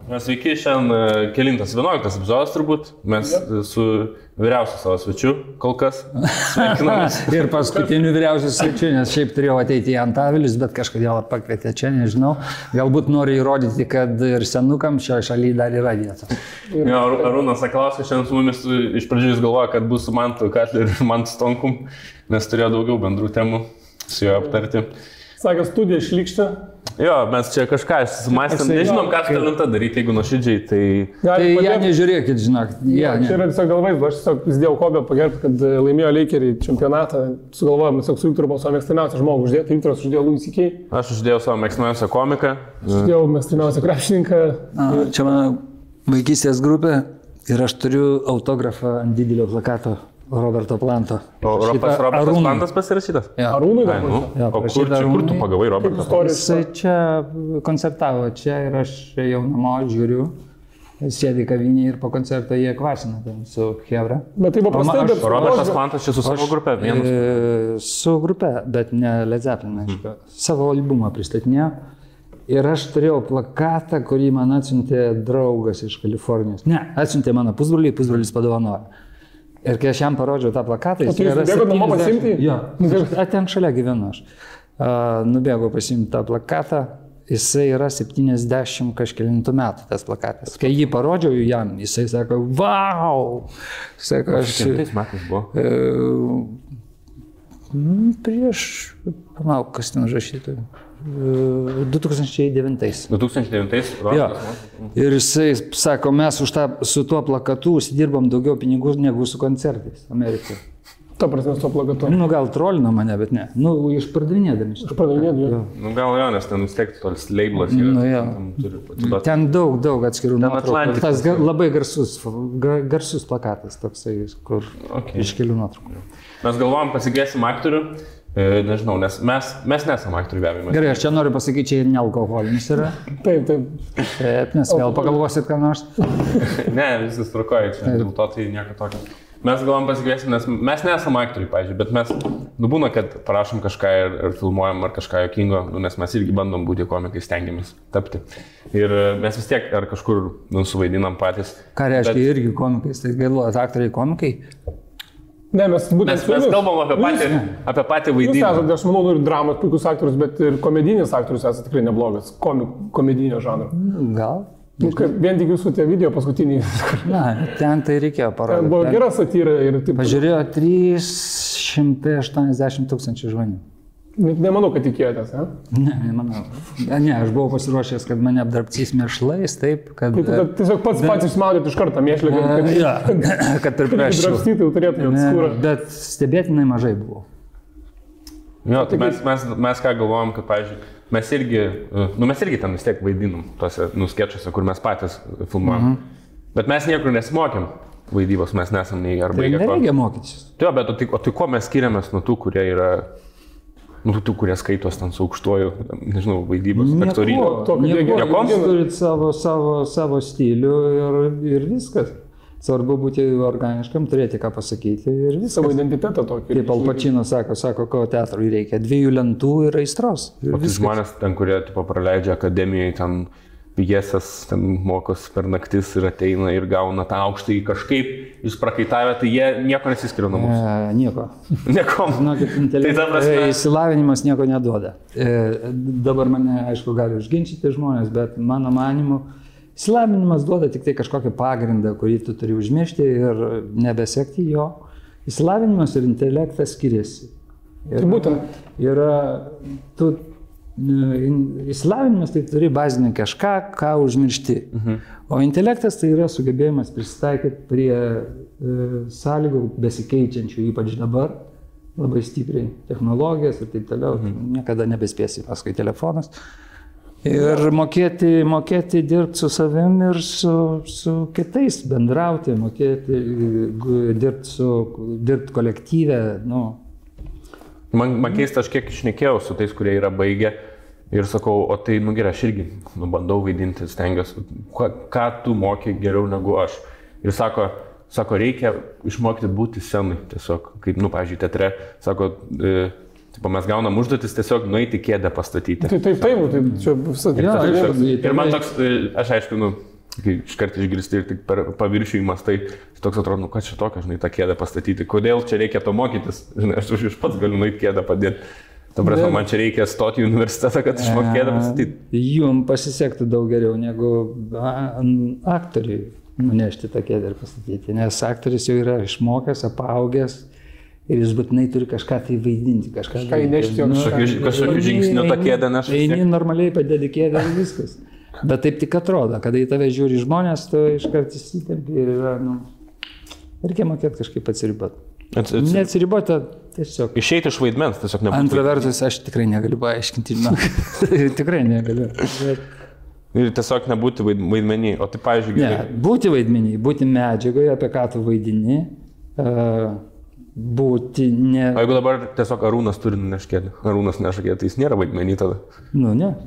Sveiki, šiandien kelintas 11 epizodas turbūt. Mes su vyriausiu savo svečiu kol kas sveikinamės. Ir paskutiniu vyriausiu svečiu, nes šiaip turėjau ateiti į Antavilis, bet kažkodėl pakvietė čia, nežinau. Galbūt nori įrodyti, kad ir senukam šioje šalyje dar yra vietos. Jo, Arūnas Sakalauskas šiandien su mumis iš pradžių jis galvoja, kad bus su Mantu Katleriu ir Mantu Stonkum, nes turėjo daugiau bendrų temų su juo aptarti. Sakė, studija šlikštė. Jo, mes čia kažką susimąstėm, nežinom, ką su talenta daryti, jeigu nuoširdžiai, tai... Tai ją nežiūrėkit, žinok. Čia yra tiesiog galvais, aš tiesiog įsidėjau Kobę pagerbti, kad laimėjo Lakeriai čempionatą. Sugalvojom, tiesiog su Viktoru buvo savo mėgstamiausią žmogų uždėti. Viktoras uždėjo Louis C.K. Aš uždėjau savo mėgstamiausią komiką. Aš uždėjau mėgstamiausią krepšininką. Čia mano vaikystės grupė ir aš turiu autografą ant didelio plakato. Roberto Planto. O Robertas Plantas pasirašytas? Ja. Arūnui Ai, nu. O kur tu pagavai Robertą? Jisai čia koncertavo čia ir aš jau namo žiūriu. Sėdi kavinėje ir po koncerto jie kvasina ten su Hebra. Bet tai buvo prastai, bet... Robertas Plantas čia su savo grupe vienas? Su grupe, bet ne Led Zeppelin, aišku. Savo albumą pristatinėjo. Ir aš turėjau plakatą, kurį man atsiuntė draugas iš Kalifornijos. Ne, atsiuntė mano pusbrolį, pusbrolis padovanojo. Ir kai aš jam parodžiau tą plakatą, jis yra 70... Jo, ten šalia gyvenu aš. Nubėgau pasimti tą plakatą, jisai yra 70 kažkelintų metų tas plakatas. Kai jį parodžiau jam, jisai sako, vau! Sako, aš... Šimtais metais buvo? Prieš, palauk, kas ten užrašytų. 2009. 2009? Jo. Ir jisai sako, mes su tuo plakatu užsidirbom daugiau pinigų negu su koncertais Amerikoje. Ta prasme, su tuo plakatu. Nu, gal trolino mane, bet ne. Nu, išpardavinėdami. Išpardavinėdami. Nu, gal jo, nes ten vis tiek tolis labelas yra. Nu, jo. Ten daug atskirų nuotraukų. Tas labai garsus plakatas toksai, kur iš kelių nuotraukų. Mes galvojam, pasigėsim aktorių. Nežinau, nes mes nesam aktorių be abejo. Gerai, aš čia noriu pasakyti, čia ir nealkoholinis yra. Taip. Taip, nes vėl pagalvosit, ką nors. Ne, viskas tvarkoja, čia dėl to tai nieko tokio. Mes galvom pasikviesim, nes mes nesam aktoriai, pavyzdžiui, bet mes, būna, kad parašom kažką ir filmuojam ar kažką jokingo, nes mes irgi bandom būti komikai, stengiamės tapti. Ir mes vis tiek ar kažkur suvaidinam patys. Ką reiškia irgi komikais, tai galvojat, aktoriai komikai? Ne, mes kalbam apie patį vaidinimą. Jūs esate, aš manau, ir dramos puikus aktorius, bet ir komedinis aktorius esate tikrai neblogas. Komedinio žanro. Gal? Vien tik jūsų tie video paskutiniai. Na, ten tai reikėjo parodyti. Ten buvo gera satyra ir taip. Pažiūrėjo 380 000 žmonių. Nemanau, kad tikėjotės, ne? Ne, nemanau. Ne, aš buvau pasiruošęs, kad mane apdrabcys mėšlais, taip, kad... Taip, tiesiog pats išsmaudėt iš karto mėšlę, kad pripreščiau. Drabstytai turėtumėt skūrą. Bet stebėtinai mažai buvo. Jo, tai mes ką galvojam, kad, pavyzdžiui, mes irgi ten vis tiek vaidinam tose skečuose, kur mes patys filmuojam. Bet mes niekur nesimokėm vaidybos, mes nesam nei ar baigę. Tai nereikia mokytis. Jo, bet o tai ko mes skiriamės nuo tų, kurie yra... tų, kurie skaitos ten su aukštuoju, nežinau, vaidybos, aktorinio. Jūs turit savo stilių ir viskas. Svarbu būti organiškam, turėti ką pasakyti ir viskas. Savo identitetą tokį. Kaip Al Pacino sako, ko teatrui reikia. 2 lentų ir aistros. O tai žmonės ten, kurie praleidžia akademijoje, ten pjesės, ten mokos per naktis ir ateina ir gauna tą aukštąjį kažkaip, jūs prakaitavę, tai jie nieko nesiskiria nuo mūsų. Nieko. Nieko. Žinokit, išsilavinimas nieko neduoda. Dabar mane, aišku, gali užginčyti žmonės, bet mano manimu, išsilavinimas duoda tik tai kažkokį pagrindą, kurį tu turi užmiršti ir nebesekti jo. Išsilavinimas ir intelektas skiriasi. Ir būtent. Išsilavinimas tai turi bazinį kažką, ką užmiršti. O intelektas tai yra sugebėjimas prisitaikyti prie sąlygų besikeičiančių, ypač dabar, labai stipriai technologijas ir taip toliau. Niekada nebespėsi paskui telefonas. Ir mokėti dirbti su savim ir su kitais, bendrauti, mokėti dirbti kolektyve. Man keista, aš kiek išnekėjau su tais, kurie yra baigę ir sakau, o tai, gerai, aš irgi bandau vaidinti, stengiuosi, ką tu moki geriau negu aš. Ir sako, reikia išmokti būti scenai, tiesiog, kaip, pavyzdžiui, teatre, sako, mes gaunam užduotis tiesiog nueiti kėdę pastatyti. Tai čia visą. Ir man toks, aš aišku, kai iškart išgirsti ir tik per paviršių įmastai, tai toks atrodo, nu ką čia tokio, žinai, tą kėdę pastatyti, kodėl čia reikia to mokytis, žinai, aš iš pats galiu nueiti kėdę padėti. Ta prasme, man čia reikia stoti į universitetą, kad išmokti kėdę pastatyti. Jums pasisektų daug geriau negu aktoriui nunešti tą kėdę ir pastatyti, nes aktorius jau yra išmokęs, apaugęs ir jis būtinai turi kažką tai vaidinti, kažką įnešti, kažkokiu žingsniu tą kėdę neša. Eini normaliai padėti kėdę ir viskas. Bet taip tik atrodo, kada į tave žiūri žmonės, tu iškart įsitempi ir yra, reikia mokėti kažkaip atsiriboti. Neatsiriboti, tiesiog. Išeiti iš vaidmens, tiesiog nebūtų. Antra vertus, aš tikrai negaliu paaiškinti, tikrai negaliu. Ir tiesiog nebūti vaidmenį, o tai, pavyzdžiui, gerai. Ne, būti vaidmenį, būti medžiagoje, apie ką tu vaidini, būti ne... O jeigu dabar tiesiog Arūnas turi neškėti, Arūnas nešakėti, tai jis nėra vaidmenį tada? Nu, ne.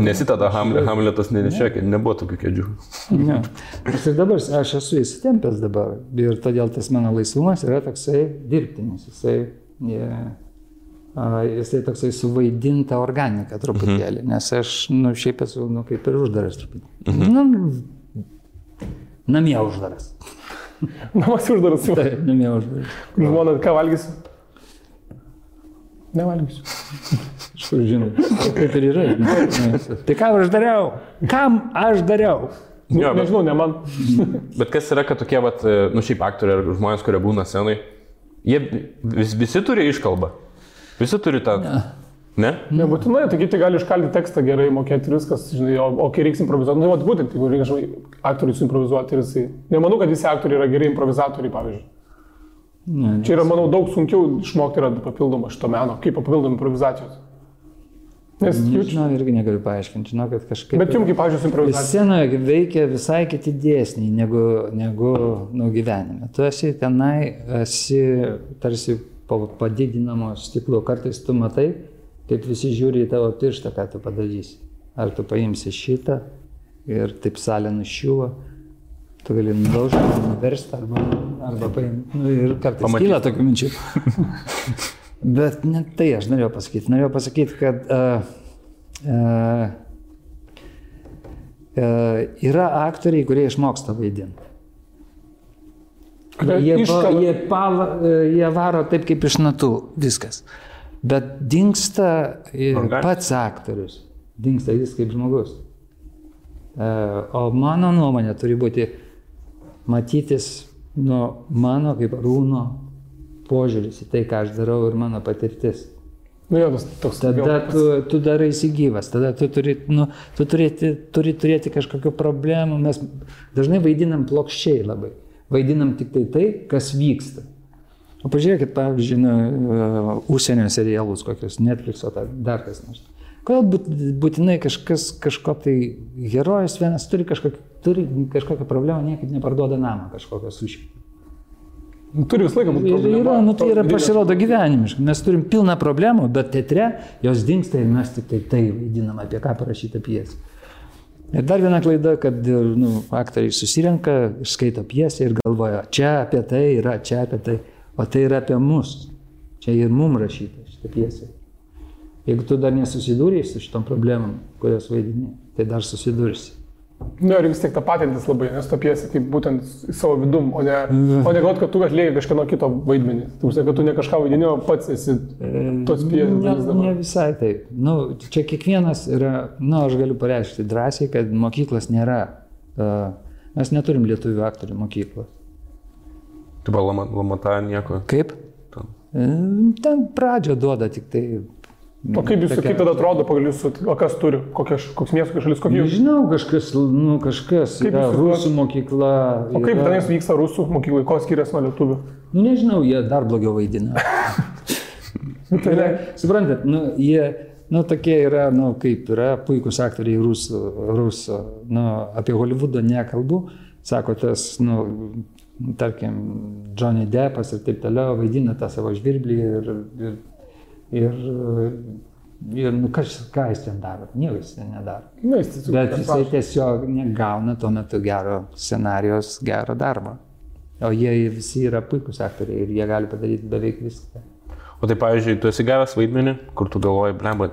Nesi tada Hamletas nenešėkė, nebuvo tokių kėdžių. Ne. Ir dabar aš esu įsitempęs dabar ir todėl tas mano laisvumas yra toksai dirbtinis, jisai toksai suvaidinta organika truputėlį, nes aš šiaip esu kaip ir uždaras truputėlį. Namie uždaras. Namas uždaras jau. Taip, namie uždaras. Žmona, ką valgysiu? Nevalgysiu. Kažkur žinai, kaip ir yra. Tai ką aš dariau? Kam aš dariau? Nežinau, ne man. Bet kas yra, kad tokie, šiaip aktoriai ar žmonės, kurie būna scenai, jie visi turi iškalbą? Visi turi tą... Ne? Nebūtinai, tai kiti gali iškalti tekstą gerai, mokėti ir viskas, žinai, o kai reiks improvizuoti, būtent, jeigu reikia, žinai, aktoriui suimprovizuoti ir jisai... Nemanau, kad visi aktoriai yra geri improvizatoriai, pavyzdžiui. Čia yra, manau, daug sunkiau išmokti yra papildoma šito meno, kaip papildoma improvizacijos. Nes žinau, irgi negaliu paaiškinti, žinau, kad kažkaip... Bet jums, kaip, pavyzdžiui, improvizacija. Scenoje veikia visai kiti dėsniai negu gyvenime. Tu esi tenai, esi tarsi padidinamo stiklo, kartais tu matai, kaip visi žiūri į tavo pirštą, ką tu padarysi. Ar tu paimsi šitą ir taip salė nušiuva. Tu gali nudaužti, nuversti arba paimti. Ir kartais kyla tokių minčių. Bet ne tai aš norėjau pasakyti. Norėjau pasakyti, kad yra aktoriai, kurie išmoksta vaidinti. Jie varo taip kaip iš natų, viskas. Bet dingsta pats aktorius. Dingsta jis kaip žmogus. O mano nuomonė turi būti matytis mano kaip Arūno požiūris į tai, ką aš darau ir mano patirtis. Tada tu daraisi gyvas, tada tu turi turėti kažkokių problemų. Mes dažnai vaidinam plokščiai labai. Vaidinam tik tai, kas vyksta. O pažiūrėkit, pavyzdžiui, užsienio serialus kokius, Netflix'o, dar kas nors. Kodėl būtinai kažko tai herojus vienas turi kažkokią problemą, niekaip neparduoda namą kažkokią sušį. Turi visą laiką būti problema. Tai yra pasirodo gyvenimiškai. Mes turim pilną problemų, bet teatre jos dingsta ir mes tik tai vaidinam, apie ką parašyta pjesė. Ir dar viena klaida, kad aktoriai susirenka, skaito pjesę ir galvoja, čia apie tai yra, čia apie tai, o tai yra apie mus. Čia ir mum rašyta šitą pjesę. Jeigu tu dar nesusidūrėjai su šitom problemom, kurios vaidini, tai dar susidursi. Ir vis tiek tą patintis labai, nes tą pjesę kaip būtent į savo vidum, o ne galvot, kad tu atlieki kažkieno kito vaidmenį. Tu kad tu ne kažką vaidini, o pats esi tos pjesės. Ne visai taip. Čia kiekvienas yra, aš galiu pareiškti drąsiai, kad mokyklos nėra. Mes neturim lietuvių aktorių mokyklos. Tu buvo Lamata nieko? Kaip? Ten pradžią duoda tik tai. O kaip tada atrodo pagal jūsų, o kas turi, koks miestas, kokia šalis, kokie jūs? Nežinau, kažkas yra rusų mokykla. O kaip tenais vyksta rusų mokyklai, ko skiriasi nuo lietuvių? Nežinau, jie dar blogiau vaidina. Suprantat, jie, tokie yra, kaip yra puikus aktoriai rusų, apie Holivudą nekalbu, sako tas, tarkim, Johnny Deppas ir taip toliau vaidina tą savo žvirblį ir ką jis ten daro? Nieko jis ten nedaro. Bet jisai tiesiog negauna tuo metu gero scenarijos, gero darbo. O jie visi yra puikus aktoriai ir jie gali padaryti beveik viską. O tai, pavyzdžiui, tu esi gavęs vaidmenį, kur tu galvoji, blemba,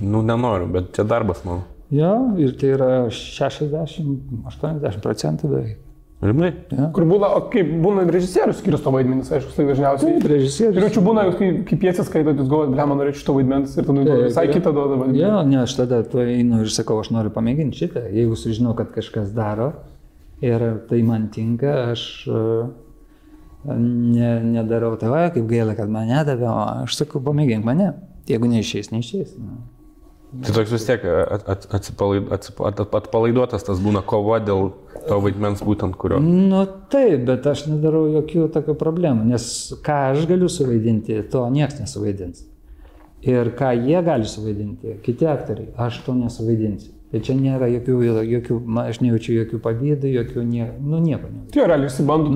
nenoriu, bet čia darbas mano. Jo, ir tai yra 60-80% beveik. Rimtai? Ja. Kur būna, kaip būna režisierius skirsto vaidmenis, aišku, tai dažniausiai. Taip, režisierius. Ir čia būna, kai piesės skaitot, jūs galvojat, blema, norėčiau šito vaidmens ir tada visai kitą duoda vaidmenį. Jo, ne, aš tada tu einu ir sakau, aš noriu pamėginti šitą. Jeigu sužinau, kad kažkas daro ir tai man tinka, aš nedarau tave, kaip gaila, kad mane davė, o aš sakau, pamėgink mane. Jeigu neišeis, neišeis. Tai toks vis tiek atpalaiduotas tas būna kova dėl to vaidmens būtent kurio. Nu taip, bet aš nedarau jokių tokių problemų, nes ką aš galiu suvaidinti, to niekas nesuvaidins. Ir ką jie gali suvaidinti, kiti aktoriai, aš to nesuvaidinsiu. Tai čia nėra jokių aš nejaučiu jokių pavydų, jokių nieko. Tai realiai išsibandų.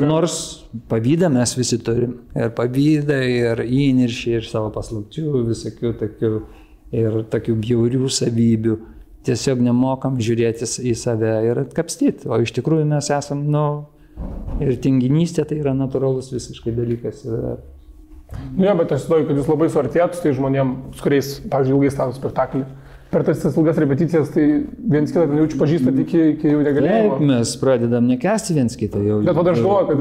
Nors pavydą mes visi turim. Ir pavydą, ir įniršį, ir savo paslapčių, visokių tokių. Ir tokių bjaurių savybių. Tiesiog nemokam žiūrėti į save ir atkapstyti. O iš tikrųjų mes esam, ir tinginystė tai yra natūralus visiškai dalykas. Ne, bet aš įsivaizduoju, kad jūs labai suartėjat su tai žmonėm, su kuriais, pavyzdžiui, ilgai stato spektaklį. Per tas ilgas repeticijas, tai viens kitą jaučiu pažįstat iki jau negalėjimo. Taip, mes pradedam nekęsti viens kitą jau. Bet aš galvoju, kad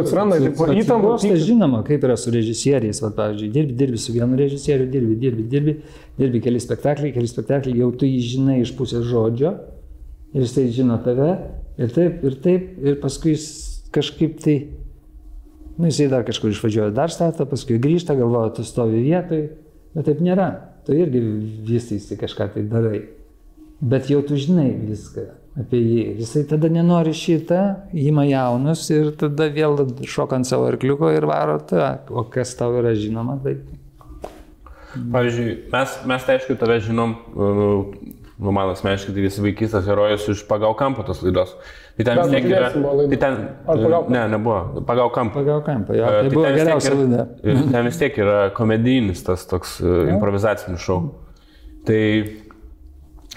atsiranda įtampos. Žinoma, kaip yra su režisieriais, pavyzdžiui, dirbi su vienu režisieriu, dirbi keli spektakliai, jau tu jį žinai iš pusės žodžio ir jisai žino tave ir taip, ir paskui kažkaip tai, jisai dar kažkur išvažiuoja, dar stato, paskui grįžta, galvoja, tu stovi vietoj, bet taip nėra. Tu irgi vystysi kažką tai darai. Bet jau tu žinai viską apie jį. Jisai tada nenori šitą, ima jaunus ir tada vėl šoka ant savo arkliuko ir varo tą. O kas tau yra žinoma, tai... Pavyzdžiui, mes tai aišku tave žinom, man asmeniškai tai visi vaikystės herojus iš Pagal kampą tos laidos. Tai ten vis tiek yra... Nebuvo. Pagal kampą. Pagal kampą, jo. Tai buvo geriausia laida. Ten vis tiek yra komedijinis tas toks improvizacinis šou. Tai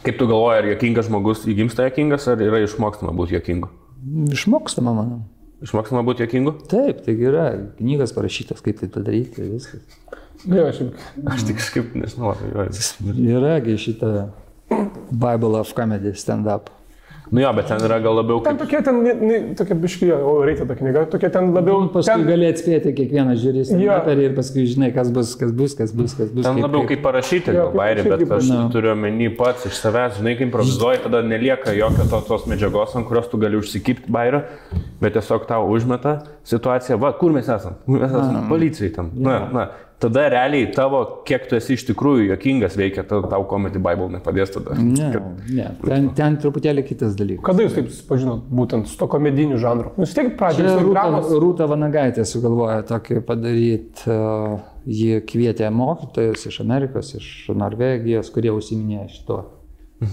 kaip tu galvoji, ar juokingas žmogus įgimsta juokingas, ar yra išmokstama būti juokingu? Išmokstama, manau. Išmokstama būti juokingu? Taip, tai yra knygas parašytas, kaip tai padaryti, viskas. Aš tik kažkaip nežinau. Yragi šitą Bible of Comedy stand-up. Jo, bet ten yra gal labiau kaip... Tokia biškija, reikia ta knyga, tokia ten labiau... Paskui gali atspėti kiekvieną žiūrį stand-uperį ir paskui žinai, kas bus. Ten labiau kaip parašyti, bairį, bet aš turiu omeny pats iš savęs, žinai, kai improvizuoji, tada nelieka jokio tos medžiagos, ant kurios tu gali užsikipti bairį, bet tiesiog tau užmeta situaciją, va, kur mes esam? Mes esam policijai tam. Tada realiai tavo, kiek tu esi iš tikrųjų juokingas veikia, tau Comedy Bible nepadės tada. Ne, ten truputėlį kitas dalykas. Kada jūs taip susipažinot būtent su to komediniu žanru? Jūs tiek pradžioje dramos? Rūta Vanagaitė sugalvojo tokį padaryti, jie kvietė mokytojus iš Amerikos, iš Norvegijos, kurie užsiminėjo šito.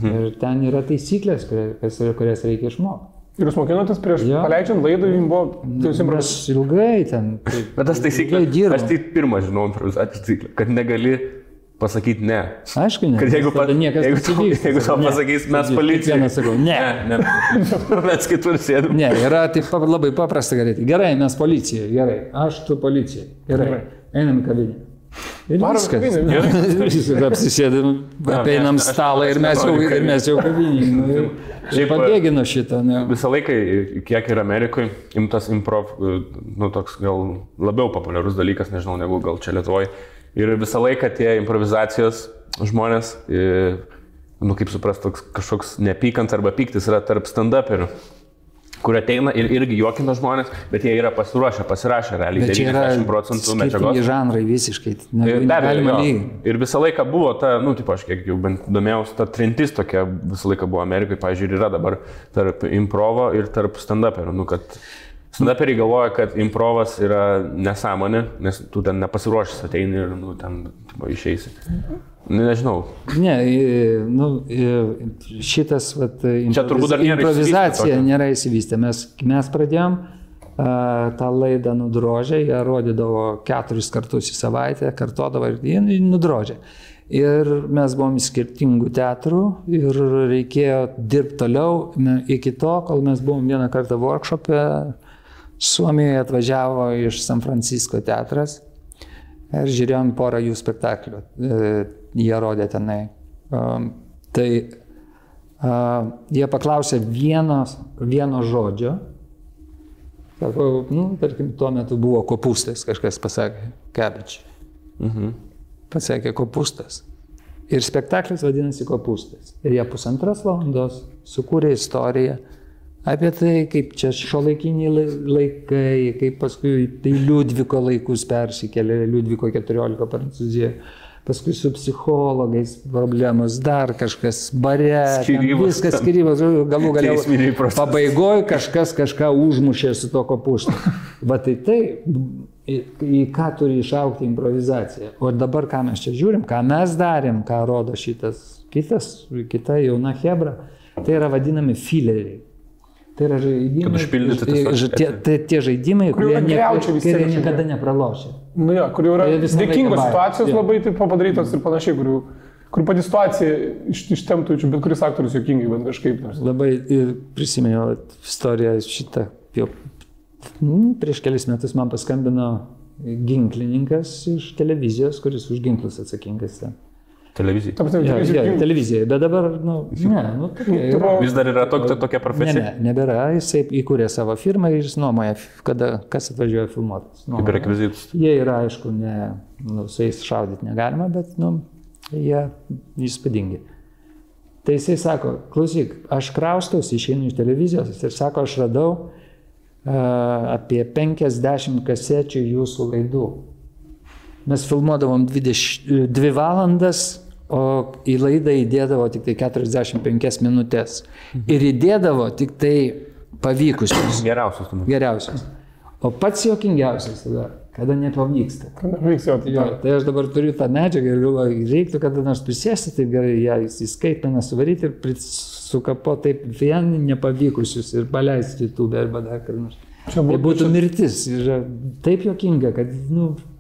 Ir ten yra taisyklės, kurias reikia išmokti. Ir jūs mokinotės prieš paleidžiant laidą, jums buvo... Mes ilgai ten... Bet tas taisyklės, aš tai pirmą žinau improvizacijos taisyklę, kad negali pasakyti ne. Aišku, ne. Kad jeigu tau pasakys, mes policija. Vieną sakau, ne. Mes kitur sėdam. Ne, yra taip labai paprasta daryti. Gerai, mes policija, gerai. Aš tu policija. Gerai, einam į kavinę. Ir viskas. Apsisėdam, apeinam stalą ir mes jau kavinį. Šiaip pabėgino šitą. Visą laiką, kiek ir Amerikoje, imtas improv, toks gal labiau populiarus dalykas, nežinau, negu gal čia Lietuvoje. Ir visą laiką tie improvizacijos žmonės, kaip suprast, toks kažkoks nepykant arba pyktis yra tarp stand-uperių, kur ateina ir irgi juokina žmonės, bet jie yra pasirašę realiai 90% medžiagos. Skirtingi žanrai visiškai. Ir visą laiką buvo ta, aš kiek jau bent domėjausi, ta trintis tokia visą laiką buvo Amerikoje, pavyzdžiui, yra dabar tarp improvo ir tarp stand-uperių. Kad stand-uperiai galvoja, kad improvas yra nesąmonė, nes tu ten nepasiruošęs ateini ir ten išeisi. Nežinau. Ne, šitas improvizacija nėra įsivystę. Mes pradėjom tą laidą Nudrožę, jie rodydavo 4 kartus į savaitę, kartodavo ir Nudrožę. Ir mes buvom iš skirtingų teatrų ir reikėjo dirbti toliau iki to, kol mes buvom vieną kartą workshop'e. Suomijoje atvažiavo iš San Francisco teatras ir žiūrėjom porą jų spektaklių. Jie rodė tenai. Tai jie paklausė vieno žodžio. Sako, tarkim, tuo metu buvo kopūstas, kažkas pasakė, cabbage. Pasakė kopūstas. Ir spektaklis vadinasi kopūstas. Ir jie 1,5 valandos sukūrė istoriją apie tai, kaip čia šiuolaikiniai laikai, kaip paskui tai Liudviko laikus persikėlė, Liudviko 14 Prancūzijoje. Paskui su psichologais problemos, dar kažkas bare, viskas skyrybos, galų galiau pabaigoje kažką užmušė su to kopūstu. Va tai, į ką turi išaukti improvizacija. O dabar ką mes čia žiūrim, ką mes darėm, ką rodo kita jauna hebra, tai yra vadinami fileriai. Tai yra žaidimai, tie žaidimai, kurie niekada nepralošia. Nu jo, kur jau yra dėkingos situacijos labai taip padarytos ir panašiai, kur pati situacija ištemptų, bet kuris aktorius juokingai, bent kažkaip. Labai prisiminiau istoriją šitą. Prieš kelis metus man paskambino ginklininkas iš televizijos, kuris už ginklus atsakingas. Televizija. Televizija, bet dabar, Vis dar yra tokia profesija? Ne, nebėra, jisai įkūrė savo firmą ir jis nuomoja, kas atvažiuoja filmuotis. Kaip rekvizitus. Jie yra, aišku, su jais šaudyti negalima, bet, jie įspūdingi. Tai jisai sako, klausyk, aš kraustausi, išeinu iš televizijos ir sako, aš radau apie 50 kasečių jūsų laidų. Mes filmuodavom 2 valandas, o į laidą įdėdavo tik tai 45 minutės. Ir įdėdavo tik tai pavykusius. Geriausius. O pats juokingiausias tada, kada nepavyksta. Tai aš dabar turiu tą medžiagą ir galvoju, reiktų kada nors prisėsti, taip gerai ją įskaitmeną suvaryti ir sukapo taip vien nepavykusius ir paleisti YouTube arba dar kur nors. Tai būtų mirtis. Ir taip juokinga, kad,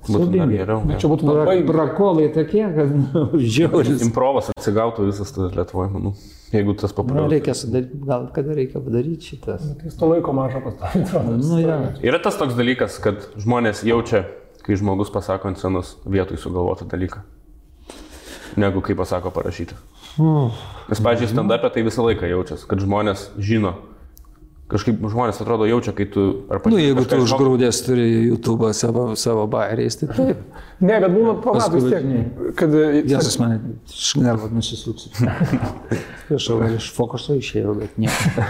siaubingai. Čia būtų labai prakolai tokie, kad, žiauris. Improvas atsigautų visas tas Lietuvoje, manau. Jeigu tas populiarus. Reikia sudaryti, gal kada reikia padaryti šitas. Jis to laiko mažą pastatyti. Yra tas toks dalykas, kad žmonės jaučia, kai žmogus pasako ant scenos vietoj sugalvotą dalyką, negu kai pasako parašyti. Nes, pavyzdžiui, stand-up'e tai visą laiką jaučiasi, kad žmonės žino. Kažkaip žmonės atrodo jaučia, kai tu... jeigu tu užgrūdęs turi YouTube'ą savo bairiais, tai taip. Ne, bet būna pamatus tiek, kad... Jėzus mane šnervat nusisuksiu. Aš iš fokuso išėjau, bet nieko.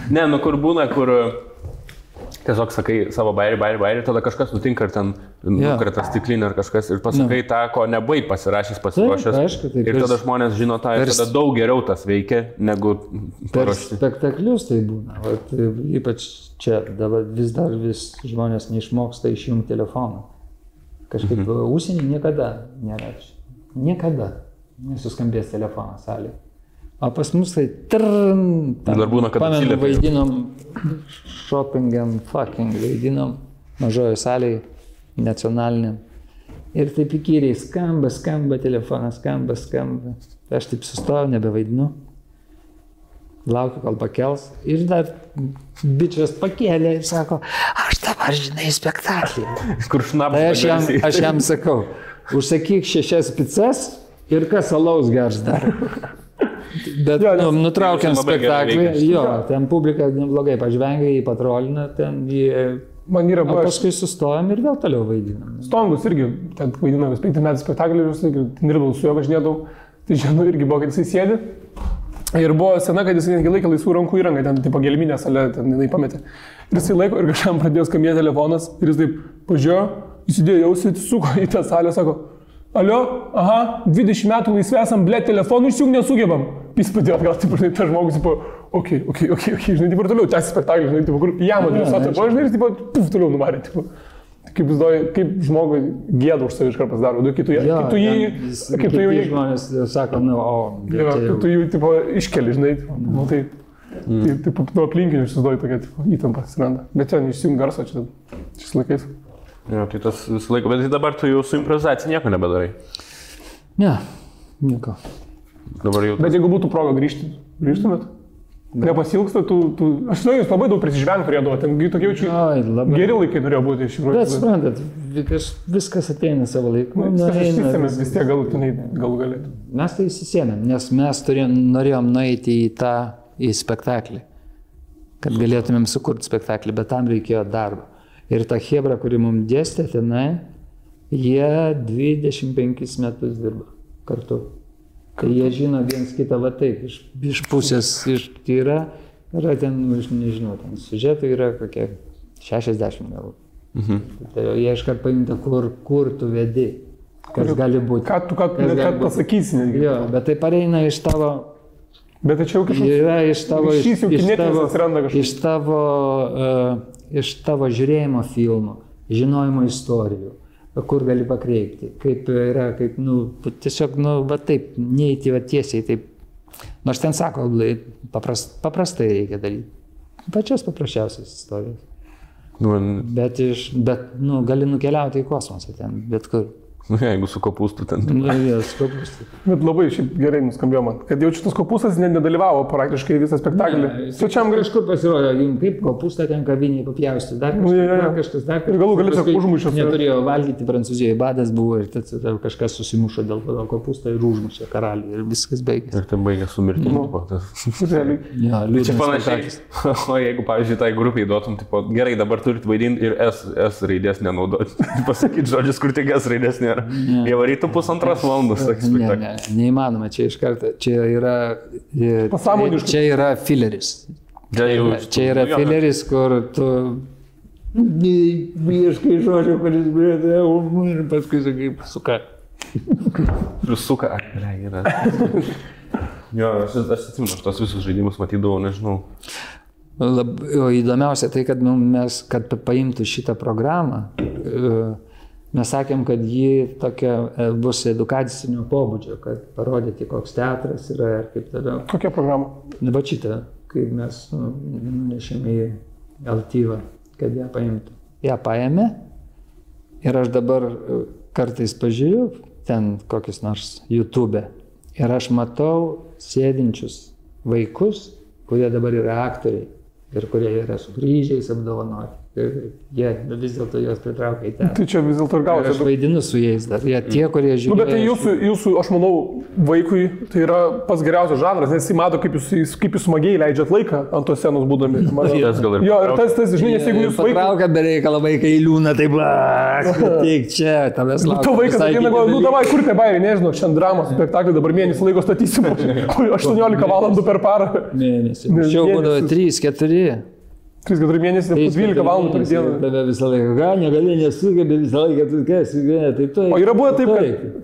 Ne, kur būna, kur tiesiog sakai savo bairį, tada kažkas nutinka ir ten nukrenta stiklinė ar kažkas ir pasakai tą, ko nebaig pasirašęs, pasiruošęs. Ir tada žmonės žino tą ir tada daug geriau tas veikia, negu paruošti. Per spektaklius tai būna. Ypač čia dabar vis žmonės neišmoksta išjungti telefoną. Kažkaip užsienį niekada nėra. Niekada nesuskambės telefonas salėje. O pas mus tai dar būna, kad pamenu, vaidinom shopping and fucking, vaidinom mažojo salėje, nacionaliniam. Ir taip įkyriai skamba telefonas, skamba. Aš taip sustojau, nebevaidinu. Laukiu, kol pakels. Ir dar bičias pakėlė ir sako, aš dabar žinai spektaklį. Kur šnapas. Tai aš jam sakau, užsakyk 6 picas ir kas alaus gers dar. Bet nutraukiant spektaklį, ten publika neblogai pažvengia, jį patrolina, ten jį... O paskui sustojam ir vėl toliau vaidinam. Stongus irgi, ten vaidinam 5 metų spektaklį, ten dirbau su juo, važinėdavau, tai žinau irgi buvo, kad jisai sėdi. Ir buvo sena, kad jisai netgi laikė laisvų rankų įrangą, ten tipo gelminė salė, ten jinai pametė. Ir jisai laiko ir kažkam pradėjo skambėti telefonas ir jis taip pažiūrėjo, įsidėjo jausį, suko į tą salę, sako, alio, 20 metų laisvė esam, blėt, telefonų išjung nesugebam. Jis padėjo atgal, taip, žinai, tas žmogus, tipo, okei, žinai, taip ir toliau, tęsi spektaklį, žinai, tipo, kur jam adresuota, žinai, ir tipo, toliau nuvarė, tipo. Kaip žmogui gėda už savi iškart pasidaro, kai tu jį... Žmonės sako, kai tu jį, tipo, iškeli, žinai, taip, nuo aplinkinių išsiduoji tokia, tipo, įtampa atsiranda. Bet ten išsijung garso čia šis laikais. Jo, tai tas visą laiką, bet dabar tu jau su improvizacija nieko nebedarai. Ne, nieko. Bet jeigu būtų proga grįžtumėt? Nepasilgsta, aš žinau, jūs labai daug prisižvengti turėdavo, ten tokie jaučiu, geri laikai norėjo būti iš tikrųjų. Bet suprantat, viskas ateina savo laiku. Mes vis tiek galutinai galų galėtų. Mes tai įsisėmėm, nes mes norėjom nueiti į spektaklį, kad galėtumėm sukurti spektaklį, bet tam reikėjo darbo. Ir ta chebra, kuri mums dėstė tenai, jie 25 metus dirba kartu. Kai jie žino viens kitą va taip, iš pusės, tai yra ten, nežinau, ten siužetų yra kokie 60 gal. Tai jie iškart paimta, kur tu vedi, kas gali būti. Ką tu pasakysi netgi. Jo, bet tai pareina iš tavo... Bet tai čia jau iš tavo žiūrėjimo filmų, žinojimo istorijų. Kur gali pakreipti, kaip yra, kaip, tiesiog, va taip, neįti va tiesiai, taip. Nors ten sako, paprastai reikia daryti. Pačios paprasčiausias istorijas. Bet gali nukeliauti į kosmosą ten, bet kur. Jeigu su kopūstu ten. Su kopūstu. Bet labai šiaip gerai nuskambėjo man, kad jau šitas kopūstas nedalyvavo praktiškai visą spektaklį. Svečiam kažkur pasirodė, kaip kopūstą ten kaviniai papjausti, dar kažkas. Ir galų galės užmušęs. Neturėjo valgyti Prancūzijoje, badas buvo ir kažkas susimušo dėl to kopūstą ir užmušė karalių ir viskas baigėsi. Ir ten baigė su mirtimi. Čia panašiai. O jeigu, pavyzdžiui, tai grupiai duotum, gerai, dabar turit vaidinti ir S raidės nenaudoti. Pasakyti žodžius, kur tik S raidės nėra. Jie varytų 1,5 valandos. Neįmanoma, čia iš karto, čia yra fileris. Čia yra fileris, kur tu ieškai žodžio, kuris brėdė, ir paskui sakai, suka. Suka, yra. Jo, aš atsimenu, aš tos visus žaidimus matydavau, nežinau. Įdomiausia tai, kad mes, kad paimtų šitą programą, mes sakėm, kad ji tokia bus edukacinio pobūdžio, kad parodyti, koks teatras yra ir kaip toliau. Kokia programa? Dabar šitą, kai mes nunešėme į Altyvą, kad ją paimtų. Ją paėmė ir aš dabar kartais pažiūriu ten kokius nors YouTube ir aš matau sėdinčius vaikus, kurie dabar yra aktoriai ir kurie yra su kryžiais apdovanoti. Jie vis dėlto juos pritraukia į teatrą. Tai čia vis dėlto ir gausi. Aš vaidinu su jais dar. Jie tie, kurie žiūri. Bet tai jūsų, aš manau, vaikui tai yra pats geriausias žanras, nes jis mato, kaip jūs smagiai leidžiat laiką ant tos scenos būdami. Jo, ir tas, žinai, nes jeigu jūs vaikai... Patraukia be reikalo vaikai liūna, taip, tik čia, tavęs laukia. Tu vaikas ateina, davai, kur te bairiai, nežinau, šiandien dramos spektaklį, dabar mėnesį laiko statysim, 18 valandų per parą. Mėnesį. Šiau būdavo 3-4. 3-4 mėnesį, 12 valandų per dieną. Tave visą laiką, negali, nesugebė visą laiką, tu kas, taip. O yra buvo taip,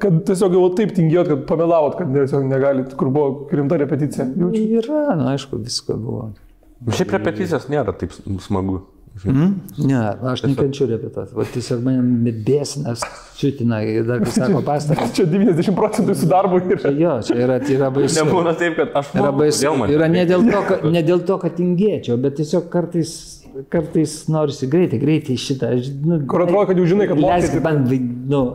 kad tiesiog jau taip tingėjot, kad pamelavot, kad tiesiog negalit, kur buvo rimta repeticija. Yra, aišku, visko buvo. Šiaip repeticijos nėra taip smagu. Ne, aš nekenčiu repetuoti. Va tiesiog mane bėsinas čiutina ir dar, kai sako, pastarą. Čia 90% su darbu yra. Jo, čia yra baisu. Nebūna taip, kad aš moku. Yra ne dėl to, kad tingėčiau, bet tiesiog kartais norisi greitai šitą. Kur atrodo, kad jau žinai, kad mokysi.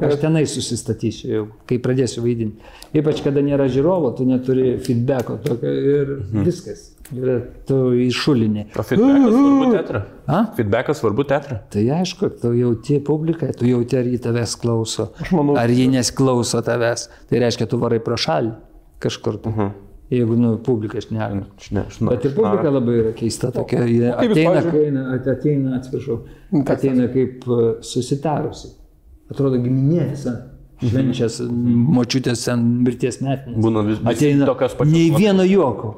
Aš tenai susistatysiu, kai pradėsiu vaidinti. Ypač, kada nėra žiūrovo, tu neturi feedbacko tokio ir viskas. Tu iššulinė. O feedbackas svarbu teatrą? Feedbackas svarbu teatrą? Tai aišku, tu jauti publiką, tu jauti, ar jį tavęs klauso, ar jį nesklauso tavęs. Tai reiškia, tu varai pro šalį kažkur. Jeigu, publika šneka. Bet ir publika labai yra keista tokia. Ateina kaip susitarusi. Atrodo giminė visa. Švenčias, močiutės mirties metinės. Būna visi tokios pačios. Nei vieno juoko.